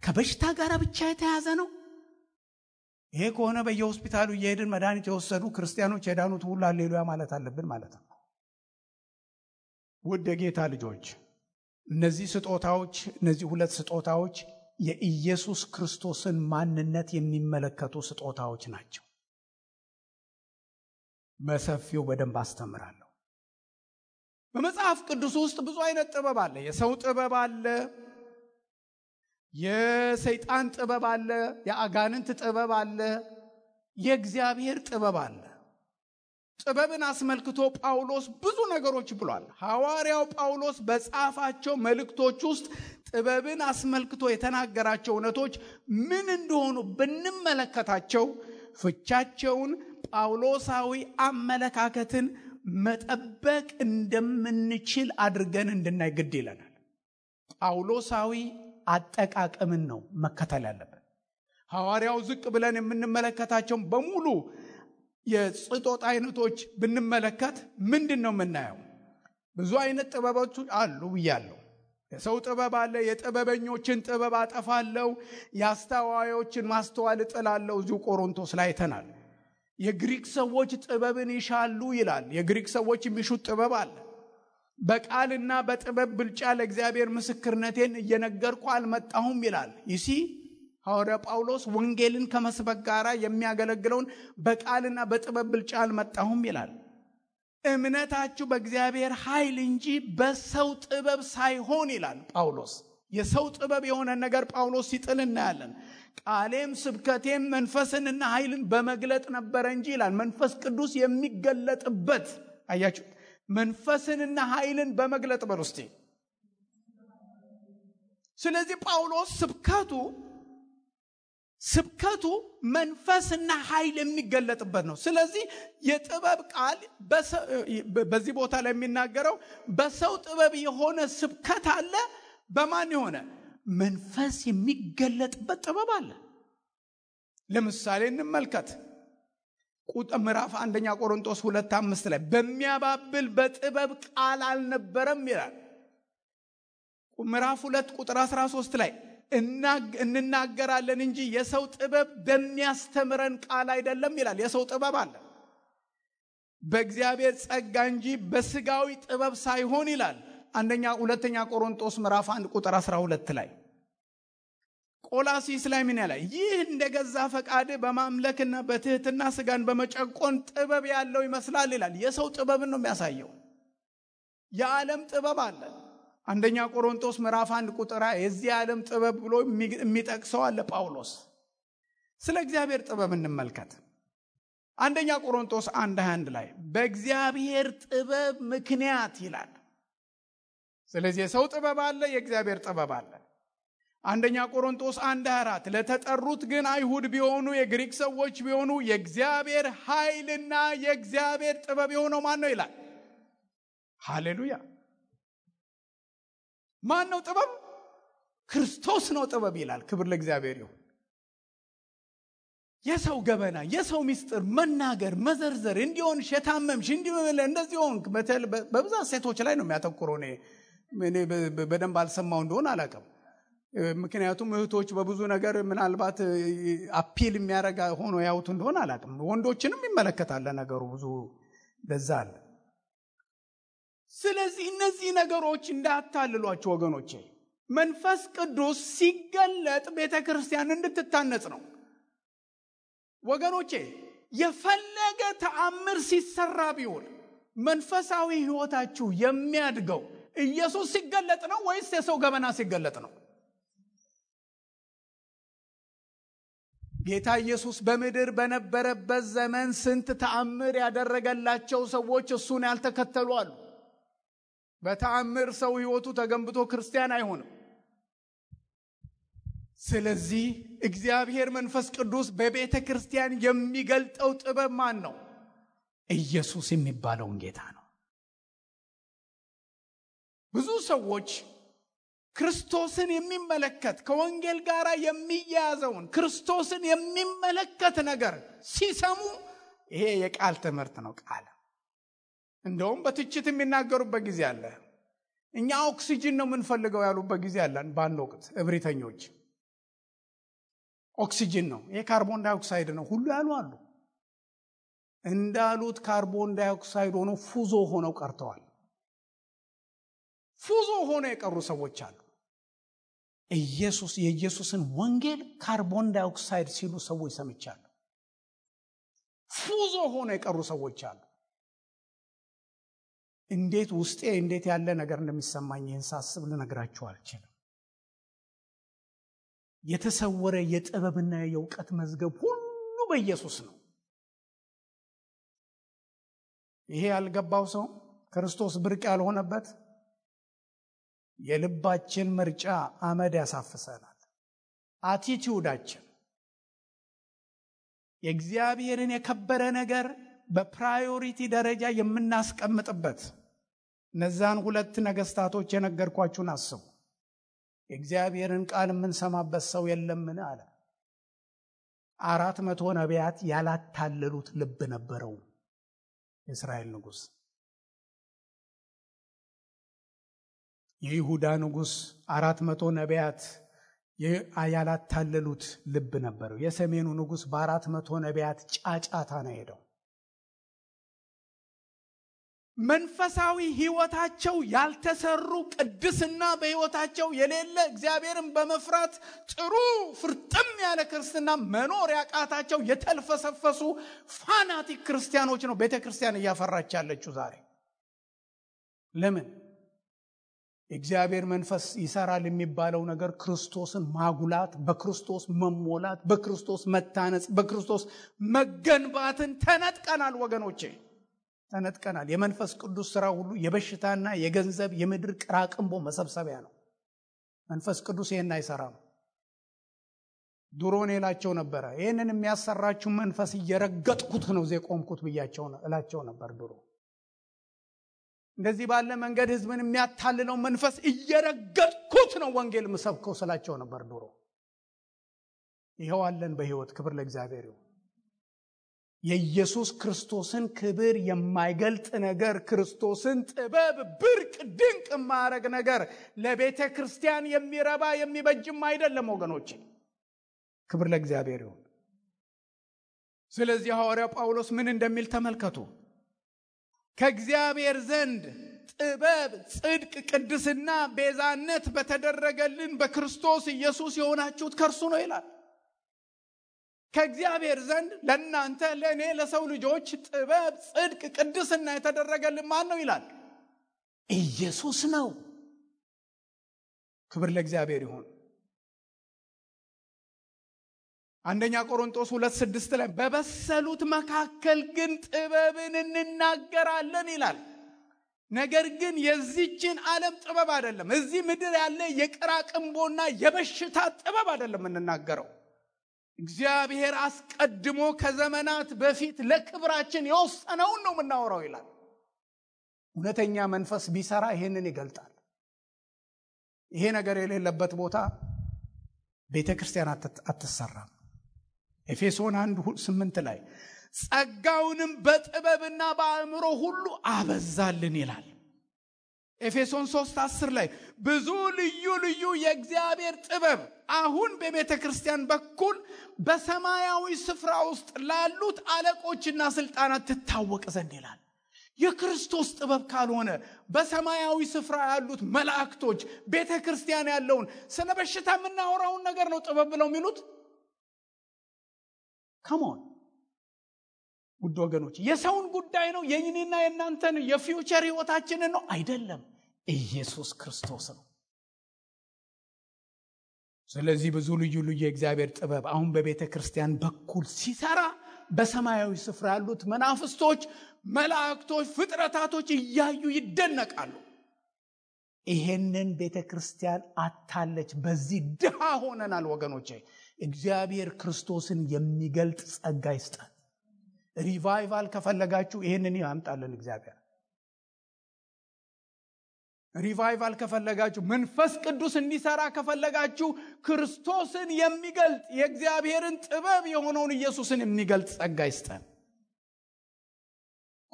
ከበሽታ ጋር ብቻ የተያዘ ነው። ይሄ ከሆነ በየሆስፒታሉ እየሄድን መድኃኒት የወሰዱ ክርስቲያኖች የዳኑት ሁሉ ሃሌሉያ ማለት አለብን ማለት ነው። ውድ የጌታ ልጆች፣ እነዚህ ስጦታዎች እነዚህ ሁለት ስጦታዎች የኢየሱስ ክርስቶስን ማንነት የሚመለከቱ ስጦታዎች ናቸው። በሰፊው በደንብ አስተምራለሁ። በመጽሐፍ ቅዱስ ውስጥ ብዙ አይነት ጥበብ አለ። የሰው ጥበብ አለ፣ የሰይጣን ጥበብ አለ፣ የአጋንንት ጥበብ አለ፣ የእግዚአብሔር ጥበብ አለ። ጥበብን አስመልክቶ ጳውሎስ ብዙ ነገሮች ብሏል። ሐዋርያው ጳውሎስ በጻፋቸው መልእክቶች ውስጥ ጥበብን አስመልክቶ የተናገራቸው እውነቶች ምን እንደሆኑ ብንመለከታቸው ፍቻቸውን ጳውሎሳዊ አመለካከትን መጠበቅ እንደምንችል አድርገን እንድናይ ግድ ይለናል። ጳውሎሳዊ አጠቃቀምን ነው መከተል ያለብን። ሐዋርያው ዝቅ ብለን የምንመለከታቸው በሙሉ የስጦታ አይነቶች ብንመለከት ምንድነው የምናየው? ብዙ አይነት ጥበቦች አሉ ብያለሁ። የሰው ጥበብ አለ። የጥበበኞችን ጥበብ አጠፋለሁ፣ የአስተዋዮችን ማስተዋል እጥላለሁ። እዚሁ ቆሮንቶስ ላይ አይተናል። የግሪክ ሰዎች ጥበብን ይሻሉ ይላል። የግሪክ ሰዎች የሚሹት ጥበብ አለ። በቃልና በጥበብ ብልጫ ለእግዚአብሔር ምስክርነቴን እየነገርኩ አልመጣሁም ይላል። ይሲ ሐዋርያ ጳውሎስ ወንጌልን ከመስበክ ጋር የሚያገለግለውን በቃልና በጥበብ ብልጫ አልመጣሁም ይላል። እምነታችሁ በእግዚአብሔር ኃይል እንጂ በሰው ጥበብ ሳይሆን ይላል ጳውሎስ። የሰው ጥበብ የሆነ ነገር ጳውሎስ ሲጥል እናያለን። ቃሌም ስብከቴም መንፈስንና ኃይልን በመግለጥ ነበረ እንጂ ይላል። መንፈስ ቅዱስ የሚገለጥበት አያችሁ፣ መንፈስንና ኃይልን በመግለጥ በርስቲ። ስለዚህ ጳውሎስ ስብከቱ ስብከቱ መንፈስና ኃይል የሚገለጥበት ነው። ስለዚህ የጥበብ ቃል በዚህ ቦታ ላይ የሚናገረው በሰው ጥበብ የሆነ ስብከት አለ። በማን የሆነ መንፈስ የሚገለጥበት ጥበብ አለ። ለምሳሌ እንመልከት። ምዕራፍ 1 ቆሮንቶስ 2:5 ላይ በሚያባብል በጥበብ ቃል አልነበረም ይላል። ምዕራፍ 2 ቁጥር 13 ላይ እንናገራለን እንጂ የሰው ጥበብ በሚያስተምረን ቃል አይደለም ይላል። የሰው ጥበብ አለ በእግዚአብሔር ጸጋ እንጂ በስጋዊ ጥበብ ሳይሆን ይላል። 2 ቆሮንቶስ ምዕራፍ 1 ቁጥር 12 ላይ ቆላሲስ ላይ ምን ያለ ይህ እንደገዛ ፈቃድ በማምለክና በትህትና ስጋን በመጨቆን ጥበብ ያለው ይመስላል ይላል። የሰው ጥበብን ነው የሚያሳየው። የዓለም ጥበብ አለ። 1 ቆሮንቶስ ምዕራፍ 1 ቁጥር የዚህ ዓለም ጥበብ ብሎ የሚጠቅሰው አለ ጳውሎስ። ስለ እግዚአብሔር ጥበብ እንመልከት። 1 ቆሮንቶስ 1:21 ላይ በእግዚአብሔር ጥበብ ምክንያት ይላል። ስለዚህ የሰው ጥበብ አለ፣ የእግዚአብሔር ጥበብ አለ። 1 ቆሮንቶስ 1:24 ለተጠሩት ግን አይሁድ ቢሆኑ የግሪክ ሰዎች ቢሆኑ የእግዚአብሔር ኃይልና የእግዚአብሔር ጥበብ የሆነው ማን ነው ይላል። ሃሌሉያ! ማን ነው ጥበብ? ክርስቶስ ነው ጥበብ ይላል። ክብር ለእግዚአብሔር ይሁን። የሰው ገበና፣ የሰው ምስጢር መናገር፣ መዘርዘር እንዲሆን ሸታመምሽ እንዲሆን እንደዚህ ሆንክ በብዛት ሴቶች ላይ ነው የሚያተኩረው። እኔ በደንብ አልሰማው እንደሆነ አላውቅም። ምክንያቱም እህቶች በብዙ ነገር ምናልባት አፒል የሚያረጋ ሆኖ ያውቱ እንደሆነ አላውቅም። ወንዶችንም ይመለከታል ነገሩ ብዙ ለዛ አለ። ስለዚህ እነዚህ ነገሮች እንዳታልሏቸው ወገኖቼ። መንፈስ ቅዱስ ሲገለጥ ቤተክርስቲያን እንድትታነጽ ነው ወገኖቼ። የፈለገ ተአምር ሲሰራ ቢሆን መንፈሳዊ ህይወታችሁ የሚያድገው ኢየሱስ ሲገለጥ ነው ወይስ የሰው ገበና ሲገለጥ ነው? ጌታ ኢየሱስ በምድር በነበረበት ዘመን ስንት ተአምር ያደረገላቸው ሰዎች እሱን ያልተከተሉ አሉ። በተአምር ሰው ህይወቱ ተገንብቶ ክርስቲያን አይሆንም። ስለዚህ እግዚአብሔር መንፈስ ቅዱስ በቤተ ክርስቲያን የሚገልጠው ጥበብ ማን ነው? ኢየሱስ የሚባለውን ጌታ ነው። ብዙ ሰዎች ክርስቶስን የሚመለከት ከወንጌል ጋር የሚያያዘውን ክርስቶስን የሚመለከት ነገር ሲሰሙ ይሄ የቃል ትምህርት ነው። ቃል እንደውም በትችት የሚናገሩበት ጊዜ አለ። እኛ ኦክሲጅን ነው የምንፈልገው ያሉበት ጊዜ አለ። በአንድ ወቅት እብሪተኞች ኦክሲጅን ነው ይሄ ካርቦን ዳይኦክሳይድ ነው ሁሉ ያሉ አሉ። እንዳሉት ካርቦን ዳይኦክሳይድ ሆኖ ፉዞ ሆነው ቀርተዋል። ፉዞ ሆነው የቀሩ ሰዎች አሉ። የኢየሱስን ወንጌል ካርቦን ዳይኦክሳይድ ሲሉ ሰዎች ሰምቻለሁ። ፉዞ ሆነው የቀሩ ሰዎች አሉ። እንዴት ውስጤ እንዴት ያለ ነገር እንደሚሰማኝ ይህን ሳስብ ልነግራችሁ አልችልም። የተሰወረ የጥበብና የእውቀት መዝገብ ሁሉ በኢየሱስ ነው። ይሄ ያልገባው ሰው ክርስቶስ ብርቅ ያልሆነበት የልባችን ምርጫ አመድ ያሳፍሰናል። አቲቲዩዳችን የእግዚአብሔርን የከበረ ነገር በፕራዮሪቲ ደረጃ የምናስቀምጥበት እነዛን ሁለት ነገስታቶች የነገርኳችሁን አስቡ። የእግዚአብሔርን ቃል የምንሰማበት ሰው የለምን አለ። 400 ነቢያት ያላታለሉት ልብ ነበረው የእስራኤል ንጉስ። የይሁዳ ንጉስ 400 ነቢያት ያላታለሉት ልብ ነበረው። የሰሜኑ ንጉስ በ400 ነቢያት ጫጫታ ነው ሄደው። መንፈሳዊ ህይወታቸው ያልተሰሩ ቅድስና በህይወታቸው የሌለ እግዚአብሔርን በመፍራት ጥሩ ፍርጥም ያለ ክርስትና መኖር ያቃታቸው የተልፈሰፈሱ ፋናቲክ ክርስቲያኖች ነው ቤተክርስቲያን እያፈራች ያለችው ዛሬ። ለምን? እግዚአብሔር መንፈስ ይሰራል የሚባለው ነገር ክርስቶስን ማጉላት፣ በክርስቶስ መሞላት፣ በክርስቶስ መታነጽ፣ በክርስቶስ መገንባትን ተነጥቀናል ወገኖቼ፣ ተነጥቀናል። የመንፈስ ቅዱስ ሥራ ሁሉ የበሽታና የገንዘብ የምድር ቅራቅንቦ መሰብሰቢያ ነው። መንፈስ ቅዱስ ይሄን አይሰራም። ድሮን እላቸው ነበር ይሄንን የሚያሰራችሁ መንፈስ እየረገጥኩት ነው ዘቆምኩት ብያቸው እላቸው ነበር። ድሮ እንደዚህ ባለ መንገድ ህዝብን የሚያታልለው መንፈስ እየረገጥኩት ነው ወንጌል መስበከው ስላቸው ነበር ድሮ። ይሄው አለን በህይወት። ክብር ለእግዚአብሔር ይሁን። የኢየሱስ ክርስቶስን ክብር የማይገልጥ ነገር፣ ክርስቶስን ጥበብ ብርቅ ድንቅ ማረግ ነገር ለቤተ ክርስቲያን የሚረባ የሚበጅም አይደለም ወገኖቼ። ክብር ለእግዚአብሔር ይሁን። ስለዚህ ሐዋርያው ጳውሎስ ምን እንደሚል ተመልከቱ። ከእግዚአብሔር ዘንድ ጥበብ፣ ጽድቅ፣ ቅድስና፣ ቤዛነት በተደረገልን በክርስቶስ ኢየሱስ የሆናችሁት ከእርሱ ነው ይላል። ከእግዚአብሔር ዘንድ ለእናንተ ለእኔ ለሰው ልጆች ጥበብ፣ ጽድቅ፣ ቅድስና የተደረገልን ማን ነው ይላል? ኢየሱስ ነው። ክብር ለእግዚአብሔር ይሁን። አንደኛ ቆሮንቶስ 2:6 ላይ በበሰሉት መካከል ግን ጥበብን እንናገራለን ይላል። ነገር ግን የዚህችን ዓለም ጥበብ አይደለም። እዚህ ምድር ያለ የቅራቅንቦና የበሽታ ጥበብ አይደለም እንናገረው። እግዚአብሔር አስቀድሞ ከዘመናት በፊት ለክብራችን የወሰነውን ነው የምናወራው ይላል። እውነተኛ መንፈስ ቢሰራ ይሄንን ይገልጣል። ይሄ ነገር የሌለበት ቦታ ቤተክርስቲያን አትሰራም። ኤፌሶን 1:8 ላይ ጸጋውንም በጥበብና በአእምሮ ሁሉ አበዛልን ይላል። ኤፌሶን 3:10 ላይ ብዙ ልዩ ልዩ የእግዚአብሔር ጥበብ አሁን በቤተ ክርስቲያን በኩል በሰማያዊ ስፍራ ውስጥ ላሉት አለቆችና ስልጣናት ትታወቅ ዘንድ ይላል። የክርስቶስ ጥበብ ካልሆነ በሰማያዊ ስፍራ ያሉት መላእክቶች ቤተ ክርስቲያን ያለውን ስለ በሽታ የምናወራውን ነገር ነው ጥበብ ብለው የሚሉት። ካሞን ውድ ወገኖች፣ የሰውን ጉዳይ ነው የእኛና የእናንተን የፊውቸር ህይወታችንን ነው አይደለም። ኢየሱስ ክርስቶስ ነው። ስለዚህ ብዙ ልዩ ልዩ የእግዚአብሔር ጥበብ አሁን በቤተ ክርስቲያን በኩል ሲሰራ በሰማያዊ ስፍራ ያሉት መናፍስቶች፣ መላእክቶች፣ ፍጥረታቶች እያዩ ይደነቃሉ። ይሄንን ቤተ ክርስቲያን አታለች። በዚህ ድሃ ሆነናል ወገኖቼ። እግዚአብሔር ክርስቶስን የሚገልጥ ጸጋ ይስጣል። ሪቫይቫል ከፈለጋችሁ ይሄንን ያምጣልን እግዚአብሔር። ሪቫይቫል ከፈለጋችሁ፣ መንፈስ ቅዱስ እንዲሰራ ከፈለጋችሁ ክርስቶስን የሚገልጥ የእግዚአብሔርን ጥበብ የሆነውን ኢየሱስን የሚገልጥ ጸጋ ይስጣል።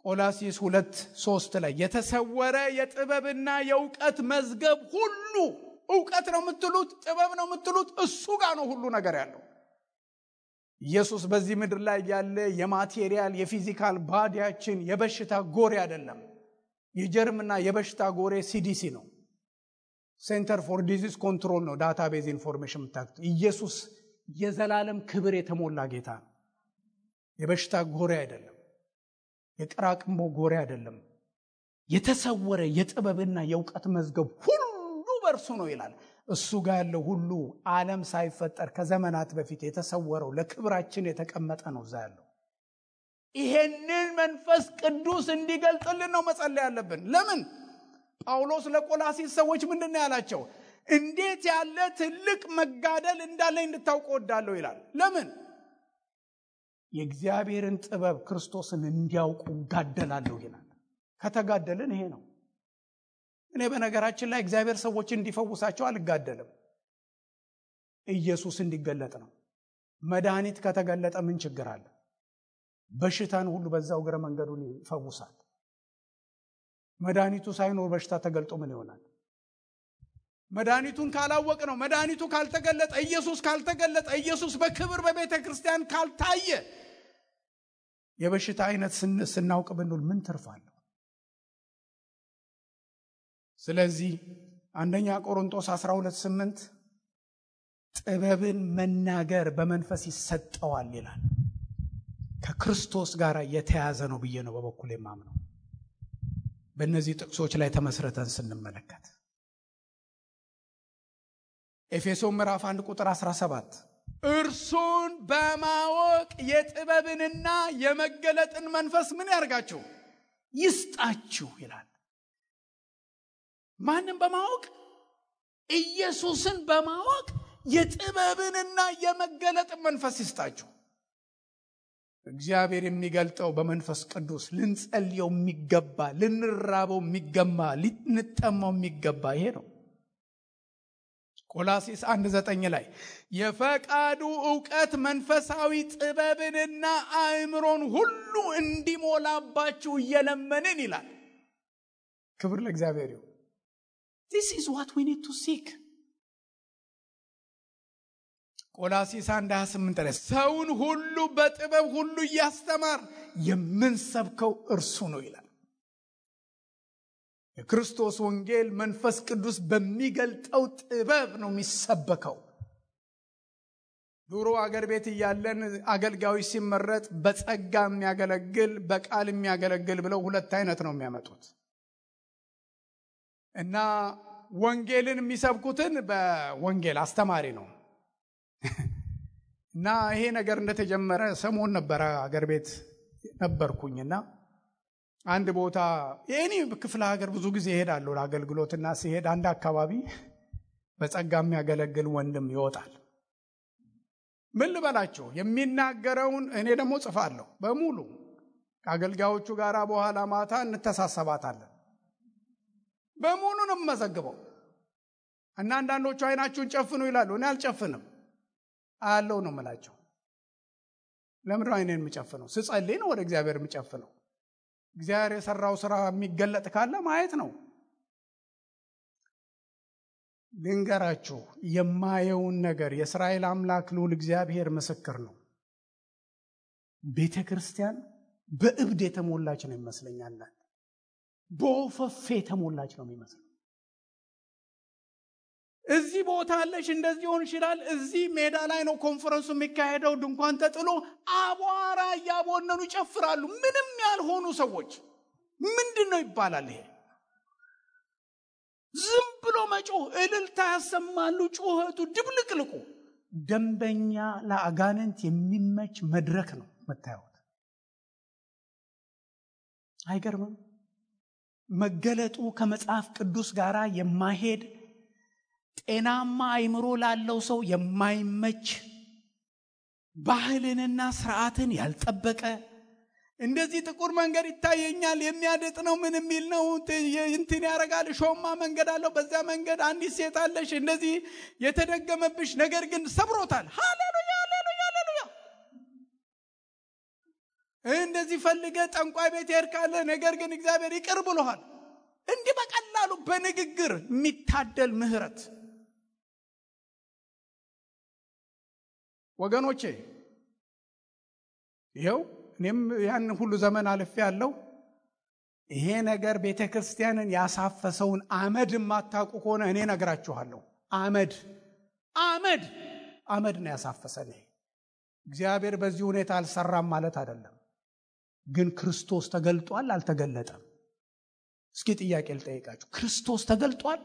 ቆላስይስ 2:3 ላይ የተሰወረ የጥበብና የእውቀት መዝገብ ሁሉ፣ እውቀት ነው የምትሉት፣ ጥበብ ነው የምትሉት፣ እሱ ጋር ነው ሁሉ ነገር ያለው። ኢየሱስ በዚህ ምድር ላይ ያለ የማቴሪያል የፊዚካል ባዲያችን የበሽታ ጎሬ አይደለም። የጀርምና የበሽታ ጎሬ ሲዲሲ ነው፣ ሴንተር ፎር ዲዚዝ ኮንትሮል ነው። ዳታቤዝ ኢንፎርሜሽን ምታክቱ። ኢየሱስ የዘላለም ክብር የተሞላ ጌታ ነው። የበሽታ ጎሬ አይደለም፣ የቅራቅንቦ ጎሬ አይደለም። የተሰወረ የጥበብና የእውቀት መዝገብ ሁሉ በእርሱ ነው ይላል። እሱ ጋር ያለው ሁሉ ዓለም ሳይፈጠር ከዘመናት በፊት የተሰወረው ለክብራችን የተቀመጠ ነው እዛ ያለው። ይሄንን መንፈስ ቅዱስ እንዲገልጥልን ነው መጸለይ ያለብን። ለምን? ጳውሎስ ለቆላስይስ ሰዎች ምንድነው ያላቸው? እንዴት ያለ ትልቅ መጋደል እንዳለኝ እንድታውቁ ወዳለሁ ይላል። ለምን? የእግዚአብሔርን ጥበብ ክርስቶስን እንዲያውቁ ጋደላለሁ ይላል። ከተጋደልን ይሄ ነው። እኔ በነገራችን ላይ እግዚአብሔር ሰዎች እንዲፈውሳቸው አልጋደልም። ኢየሱስ እንዲገለጥ ነው። መድኃኒት ከተገለጠ ምን ችግር አለ? በሽታን ሁሉ በዛው እግረ መንገዱን ይፈውሳል። መድኃኒቱ ሳይኖር በሽታ ተገልጦ ምን ይሆናል? መድኃኒቱን ካላወቅ ነው፣ መድኃኒቱ ካልተገለጠ፣ ኢየሱስ ካልተገለጠ፣ ኢየሱስ በክብር በቤተ ክርስቲያን ካልታየ፣ የበሽታ አይነት ስናውቅ ብንል ምን ትርፋለሁ? ስለዚህ አንደኛ ቆሮንቶስ 12:8 ጥበብን መናገር በመንፈስ ይሰጠዋል ይላል። ከክርስቶስ ጋር የተያዘ ነው ብዬ ነው በበኩሌ የማምነው። በእነዚህ ጥቅሶች ላይ ተመስርተን ስንመለከት ኤፌሶን ምዕራፍ 1:17 እርሱን በማወቅ የጥበብንና የመገለጥን መንፈስ ምን ያርጋችሁ? ይስጣችሁ ይላል። ማንም በማወቅ ኢየሱስን በማወቅ የጥበብንና የመገለጥ መንፈስ ይስጣችሁ። እግዚአብሔር የሚገልጠው በመንፈስ ቅዱስ ልንጸልየው የሚገባ፣ ልንራበው የሚገባ፣ ልንጠማው የሚገባ ይሄ ነው። ቆላስይስ 1:9 ላይ የፈቃዱ ዕውቀት መንፈሳዊ ጥበብንና አእምሮን ሁሉ እንዲሞላባችሁ እየለመንን ይላል። ክብር ለእግዚአብሔር ይሁን። This is what we need to seek. ቆላስይስ 1:28 ላይ ሰውን ሁሉ በጥበብ ሁሉ እያስተማር የምንሰብከው እርሱ ነው ይላል። የክርስቶስ ወንጌል መንፈስ ቅዱስ በሚገልጠው ጥበብ ነው የሚሰበከው። ዱሮ አገር ቤት እያለን አገልጋዮች ሲመረጥ በጸጋ የሚያገለግል በቃል የሚያገለግል ብለው ሁለት አይነት ነው የሚያመጡት። እና ወንጌልን የሚሰብኩትን በወንጌል አስተማሪ ነው። እና ይሄ ነገር እንደተጀመረ ሰሞን ነበረ አገር ቤት ነበርኩኝና አንድ ቦታ የኔ ክፍለ ሀገር ብዙ ጊዜ እሄዳለሁ ለአገልግሎትና ሲሄድ አንድ አካባቢ በጸጋ የሚያገለግል ወንድም ይወጣል። ምን ልበላችሁ የሚናገረውን እኔ ደግሞ ጽፋለሁ በሙሉ ከአገልጋዮቹ ጋር በኋላ ማታ እንተሳሰባታለን። በሙሉ ነው የምመዘግበው። እና አንዳንዶቹ አይናችሁን ጨፍኑ ይላሉ። እኔ አልጨፍንም አለው ነው የምላቸው። ለምን አይኔን የምጨፍነው? ስጸልይ ነው ወደ እግዚአብሔር የምጨፍነው። እግዚአብሔር የሰራው ስራ የሚገለጥ ካለ ማየት ነው። ልንገራችሁ የማየውን ነገር የእስራኤል አምላክ ልዑል እግዚአብሔር ምስክር ነው። ቤተ ክርስቲያን በእብድ የተሞላች ነው ይመስለኛል። በወፈፌ የተሞላች ነው የሚመስለው። እዚህ ቦታ አለሽ እንደዚህ ሆን ይችላል። እዚህ ሜዳ ላይ ነው ኮንፈረንሱ የሚካሄደው። ድንኳን ተጥሎ አቧራ ያቦነኑ ይጨፍራሉ። ምንም ያልሆኑ ሰዎች ምንድነው ይባላል ይሄ? ዝም ብሎ መጮህ፣ እልልታ ያሰማሉ። ጩኸቱ ድብልቅልቁ ደንበኛ ለአጋንንት የሚመች መድረክ ነው መታየት። አይገርምም? መገለጡ ከመጽሐፍ ቅዱስ ጋር የማይሄድ ጤናማ አይምሮ ላለው ሰው የማይመች ባህልንና ስርዓትን ያልጠበቀ እንደዚህ ጥቁር መንገድ ይታየኛል የሚያደጥ ነው ምን የሚል ነው እንትን ያረጋል። ሾማ መንገድ አለው። በዛ መንገድ አንዲት ሴት አለሽ እንደዚህ የተደገመብሽ ነገር ግን ሰብሮታል። ሃሌሉያ ሃሌሉያ ሃሌሉያ። እንደዚህ ፈልገ ጠንቋይ ቤት ሄድካለ ነገር ግን እግዚአብሔር ይቅር ብሎሃል። እንዲህ በቀላሉ በንግግር የሚታደል ምህረት ወገኖቼ ይሄው እኔም ያን ሁሉ ዘመን አልፌ ያለው ይሄ ነገር ቤተክርስቲያንን ያሳፈሰውን አመድ ማታውቁ ከሆነ እኔ ነግራችኋለሁ። አመድ ነው ያሳፈሰን። እግዚአብሔር በዚህ ሁኔታ አልሰራም ማለት አይደለም። ግን ክርስቶስ ተገልጧል አልተገለጠም? እስኪ ጥያቄ ልጠይቃችሁ። ክርስቶስ ተገልጧል?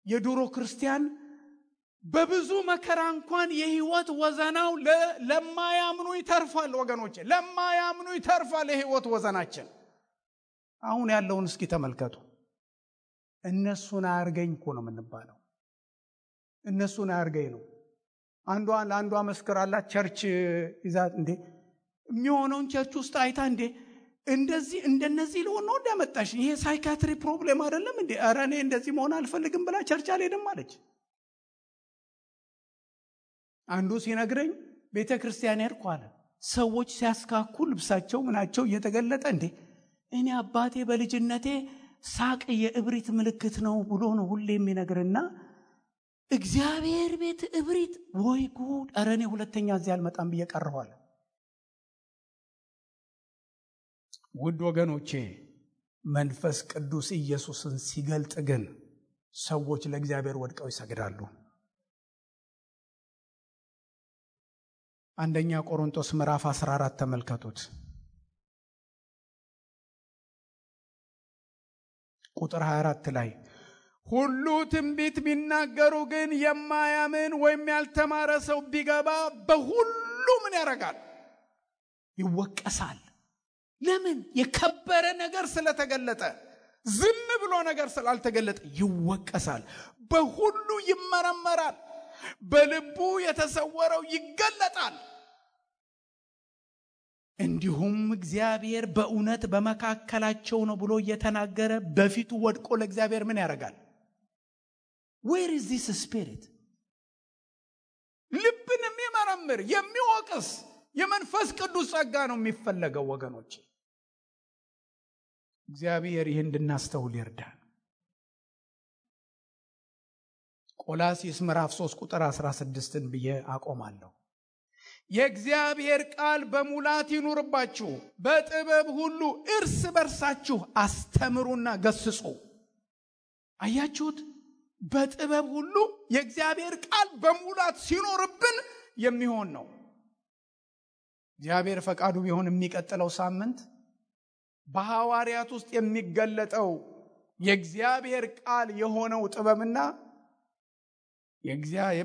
የድሮ ክርስቲያን በብዙ መከራ እንኳን የህይወት ወዘናው ለማያምኑ ይተርፋል። ወገኖቼ ለማያምኑ ይተርፋል የህይወት ወዘናችን። አሁን ያለውን እስኪ ተመልከቱ። እነሱን አያርገኝ እኮ ነው የምንባለው። እነሱን አያርገኝ ነው። አንዷ መስክራላት ቸርች ይዛት እንዴ የሚሆነውን ቸርች ውስጥ አይታ እንዴ እንደዚህ እንደነዚህ ሊሆን ነው እንደመጣሽ ይሄ ሳይካትሪ ፕሮብሌም አይደለም እንዴ? ኧረ እኔ እንደዚህ መሆን አልፈልግም ብላ ቸርች አልሄድም አለች። አንዱ ሲነግረኝ ቤተክርስቲያን ሄድኩ አለ። ሰዎች ሲያስካኩ ልብሳቸው ምናቸው እየተገለጠ እንዴ እኔ አባቴ በልጅነቴ ሳቅ የእብሪት ምልክት ነው ብሎ ነው ሁሌ የሚነግርና እግዚአብሔር ቤት እብሪት ወይ ጉድ! ኧረ እኔ ሁለተኛ እዚህ አልመጣም ብዬ ቀረዋል። ውድ ወገኖቼ መንፈስ ቅዱስ ኢየሱስን ሲገልጥ ግን ሰዎች ለእግዚአብሔር ወድቀው ይሰግዳሉ። አንደኛ ቆሮንቶስ ምዕራፍ 14 ተመልከቱት። ቁጥር 24 ላይ ሁሉ ትንቢት ቢናገሩ ግን የማያምን ወይም ያልተማረ ሰው ቢገባ በሁሉ ምን ያደርጋል? ይወቀሳል። ለምን? የከበረ ነገር ስለተገለጠ። ዝም ብሎ ነገር ስላልተገለጠ ይወቀሳል። በሁሉ ይመረመራል። በልቡ የተሰወረው ይገለጣል። እንዲሁም እግዚአብሔር በእውነት በመካከላቸው ነው ብሎ እየተናገረ በፊቱ ወድቆ ለእግዚአብሔር ምን ያደርጋል? Where is this spirit? ልብን የሚመረምር የሚወቅስ የመንፈስ ቅዱስ ጸጋ ነው የሚፈለገው ወገኖች። እግዚአብሔር ይህን እንድናስተውል ይርዳን። ቆላስይስ ምዕራፍ 3 ቁጥር 16ን ብዬ አቆማለሁ። የእግዚአብሔር ቃል በሙላት ይኑርባችሁ፣ በጥበብ ሁሉ እርስ በርሳችሁ አስተምሩና ገስጹ። አያችሁት? በጥበብ ሁሉ የእግዚአብሔር ቃል በሙላት ሲኖርብን የሚሆን ነው። እግዚአብሔር ፈቃዱ ቢሆን የሚቀጥለው ሳምንት በሐዋርያት ውስጥ የሚገለጠው የእግዚአብሔር ቃል የሆነው ጥበብና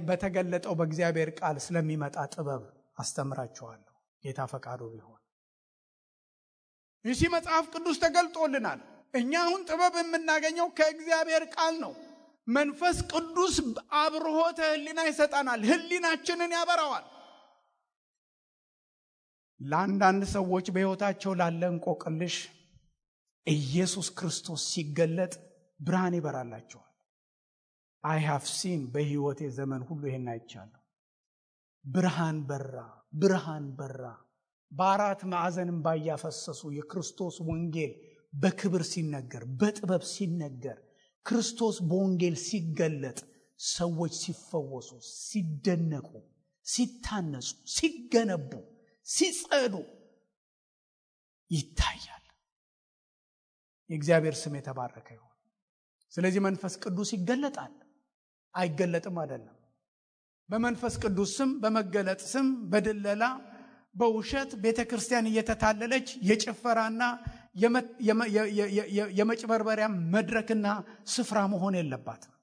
በተገለጠው በእግዚአብሔር ቃል ስለሚመጣ ጥበብ አስተምራችኋለሁ ጌታ ፈቃዱ ቢሆን። ይህ መጽሐፍ ቅዱስ ተገልጦልናል። እኛ አሁን ጥበብ የምናገኘው ከእግዚአብሔር ቃል ነው። መንፈስ ቅዱስ አብርሆተ ሕሊና ይሰጠናል። ሕሊናችንን ያበራዋል። ለአንዳንድ ሰዎች በሕይወታቸው ላለ እንቆቅልሽ ኢየሱስ ክርስቶስ ሲገለጥ ብርሃን ይበራላቸዋል። I have seen በሕይወቴ ዘመን ሁሉ ይሄን አይቻለሁ። ብርሃን በራ። በአራት ማዕዘንም ባያፈሰሱ የክርስቶስ ወንጌል በክብር ሲነገር፣ በጥበብ ሲነገር፣ ክርስቶስ በወንጌል ሲገለጥ ሰዎች ሲፈወሱ፣ ሲደነቁ፣ ሲታነጹ፣ ሲገነቡ፣ ሲጸዱ ይታያል። የእግዚአብሔር ስም የተባረከ ይሁን። ስለዚህ መንፈስ ቅዱስ ይገለጣል። አይገለጥም አይደለም። በመንፈስ ቅዱስ ስም፣ በመገለጥ ስም፣ በድለላ በውሸት ቤተክርስቲያን እየተታለለች የጭፈራና የመጭበርበሪያ መድረክና ስፍራ መሆን የለባትም።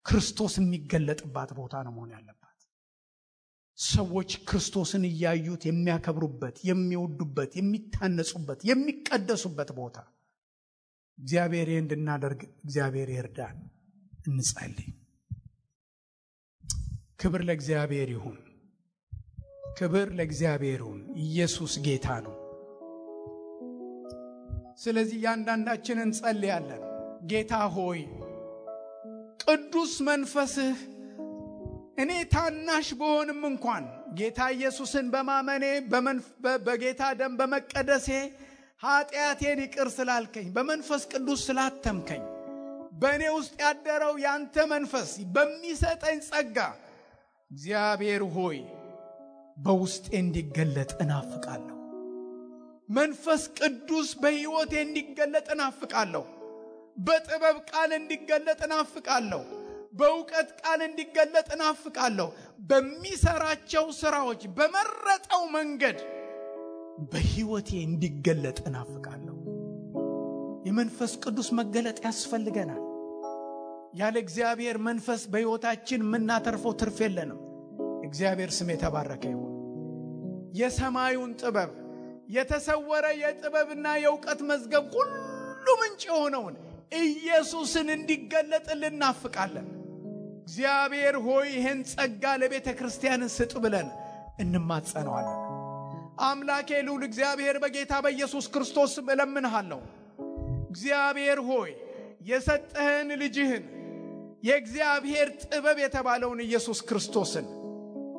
ክርስቶስ የሚገለጥባት ቦታ ነው መሆን ያለባት። ሰዎች ክርስቶስን እያዩት የሚያከብሩበት፣ የሚወዱበት፣ የሚታነጹበት፣ የሚቀደሱበት ቦታ እግዚአብሔር እንድናደርግ እግዚአብሔር ይርዳን። እንጸልይ። ክብር ለእግዚአብሔር ይሁን። ክብር ለእግዚአብሔር ይሁን። ኢየሱስ ጌታ ነው። ስለዚህ ያንዳንዳችንን እንጸልያለን። ጌታ ሆይ ቅዱስ መንፈስህ እኔ ታናሽ በሆንም እንኳን ጌታ ኢየሱስን በማመኔ በጌታ ደም በመቀደሴ ኃጢአቴን ይቅር ስላልከኝ በመንፈስ ቅዱስ ስላተምከኝ በእኔ ውስጥ ያደረው ያንተ መንፈስ በሚሰጠኝ ጸጋ እግዚአብሔር ሆይ በውስጤ እንዲገለጥ እናፍቃለሁ። መንፈስ ቅዱስ በሕይወቴ እንዲገለጥ እናፍቃለሁ። በጥበብ ቃል እንዲገለጥ እናፍቃለሁ። በእውቀት ቃል እንዲገለጥ እናፍቃለሁ። በሚሰራቸው ስራዎች በመረጠው መንገድ በሕይወቴ እንዲገለጥ እናፍቃለሁ። የመንፈስ ቅዱስ መገለጥ ያስፈልገናል። ያለ እግዚአብሔር መንፈስ በሕይወታችን የምናተርፈው ትርፍ የለንም። እግዚአብሔር ስም የተባረከ ይሁን። የሰማዩን ጥበብ የተሰወረ የጥበብና የእውቀት መዝገብ ሁሉ ምንጭ የሆነውን ኢየሱስን እንዲገለጥልን እናፍቃለን። እግዚአብሔር ሆይ ይህን ጸጋ ለቤተ ክርስቲያን ስጥ ብለን እንማጸነዋለን። አምላኬ ልዑል እግዚአብሔር በጌታ በኢየሱስ ክርስቶስ ስም እለምንሃለሁ። እግዚአብሔር ሆይ የሰጠህን ልጅህን የእግዚአብሔር ጥበብ የተባለውን ኢየሱስ ክርስቶስን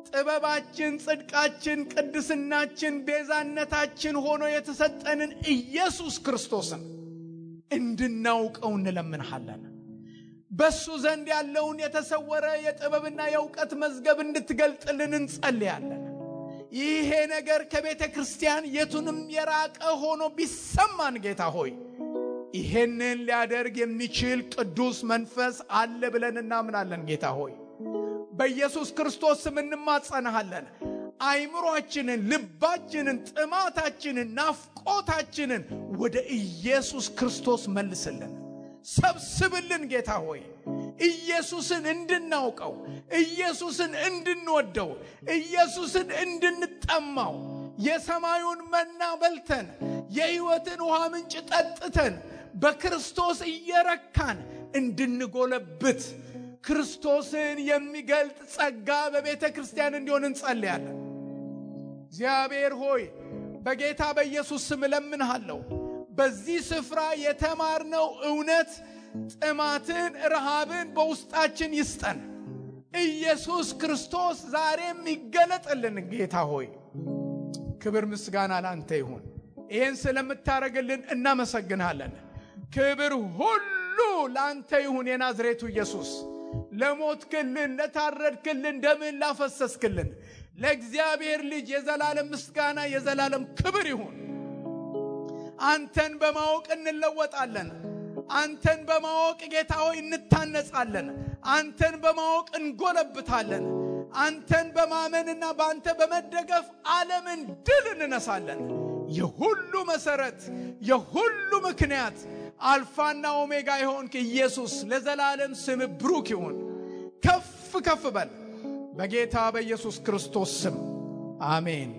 ጥበባችን፣ ጽድቃችን፣ ቅድስናችን፣ ቤዛነታችን ሆኖ የተሰጠንን ኢየሱስ ክርስቶስን እንድናውቀው እንለምንሃለን። በሱ ዘንድ ያለውን የተሰወረ የጥበብና የእውቀት መዝገብ እንድትገልጥልን እንጸልያለን። ይሄ ነገር ከቤተ ክርስቲያን የቱንም የራቀ ሆኖ ቢሰማን ጌታ ሆይ ይሄንን ሊያደርግ የሚችል ቅዱስ መንፈስ አለ ብለን እናምናለን። ጌታ ሆይ በኢየሱስ ክርስቶስ ስም እንማጸናሃለን። አይምሮአችንን፣ ልባችንን፣ ጥማታችንን፣ ናፍቆታችንን ወደ ኢየሱስ ክርስቶስ መልስልን፣ ሰብስብልን። ጌታ ሆይ ኢየሱስን እንድናውቀው፣ ኢየሱስን እንድንወደው፣ ኢየሱስን እንድንጠማው፣ የሰማዩን መና በልተን የሕይወትን ውሃ ምንጭ ጠጥተን በክርስቶስ እየረካን እንድንጎለብት ክርስቶስን የሚገልጥ ጸጋ በቤተ ክርስቲያን እንዲሆን እንጸልያለን። እግዚአብሔር ሆይ በጌታ በኢየሱስ ስም እለምንሃለሁ። በዚህ ስፍራ የተማርነው እውነት ጥማትን፣ ረሃብን በውስጣችን ይስጠን። ኢየሱስ ክርስቶስ ዛሬም ይገለጥልን። ጌታ ሆይ ክብር ምስጋና ላንተ ይሁን። ይህን ስለምታረግልን እናመሰግንሃለን። ክብር ሁሉ ላንተ ይሁን። የናዝሬቱ ኢየሱስ ለሞትክልን፣ ለታረድክልን፣ ደምን ላፈሰስክልን ለእግዚአብሔር ልጅ የዘላለም ምስጋና የዘላለም ክብር ይሁን። አንተን በማወቅ እንለወጣለን። አንተን በማወቅ ጌታ ሆይ እንታነጻለን። አንተን በማወቅ እንጎለብታለን። አንተን በማመንና በአንተ በመደገፍ ዓለምን ድል እንነሳለን። የሁሉ መሰረት፣ የሁሉ ምክንያት፣ አልፋና ኦሜጋ የሆንክ ኢየሱስ ለዘላለም ስም ብሩክ ይሁን። ከፍ ከፍ በል በጌታ በኢየሱስ ክርስቶስ ስም አሜን።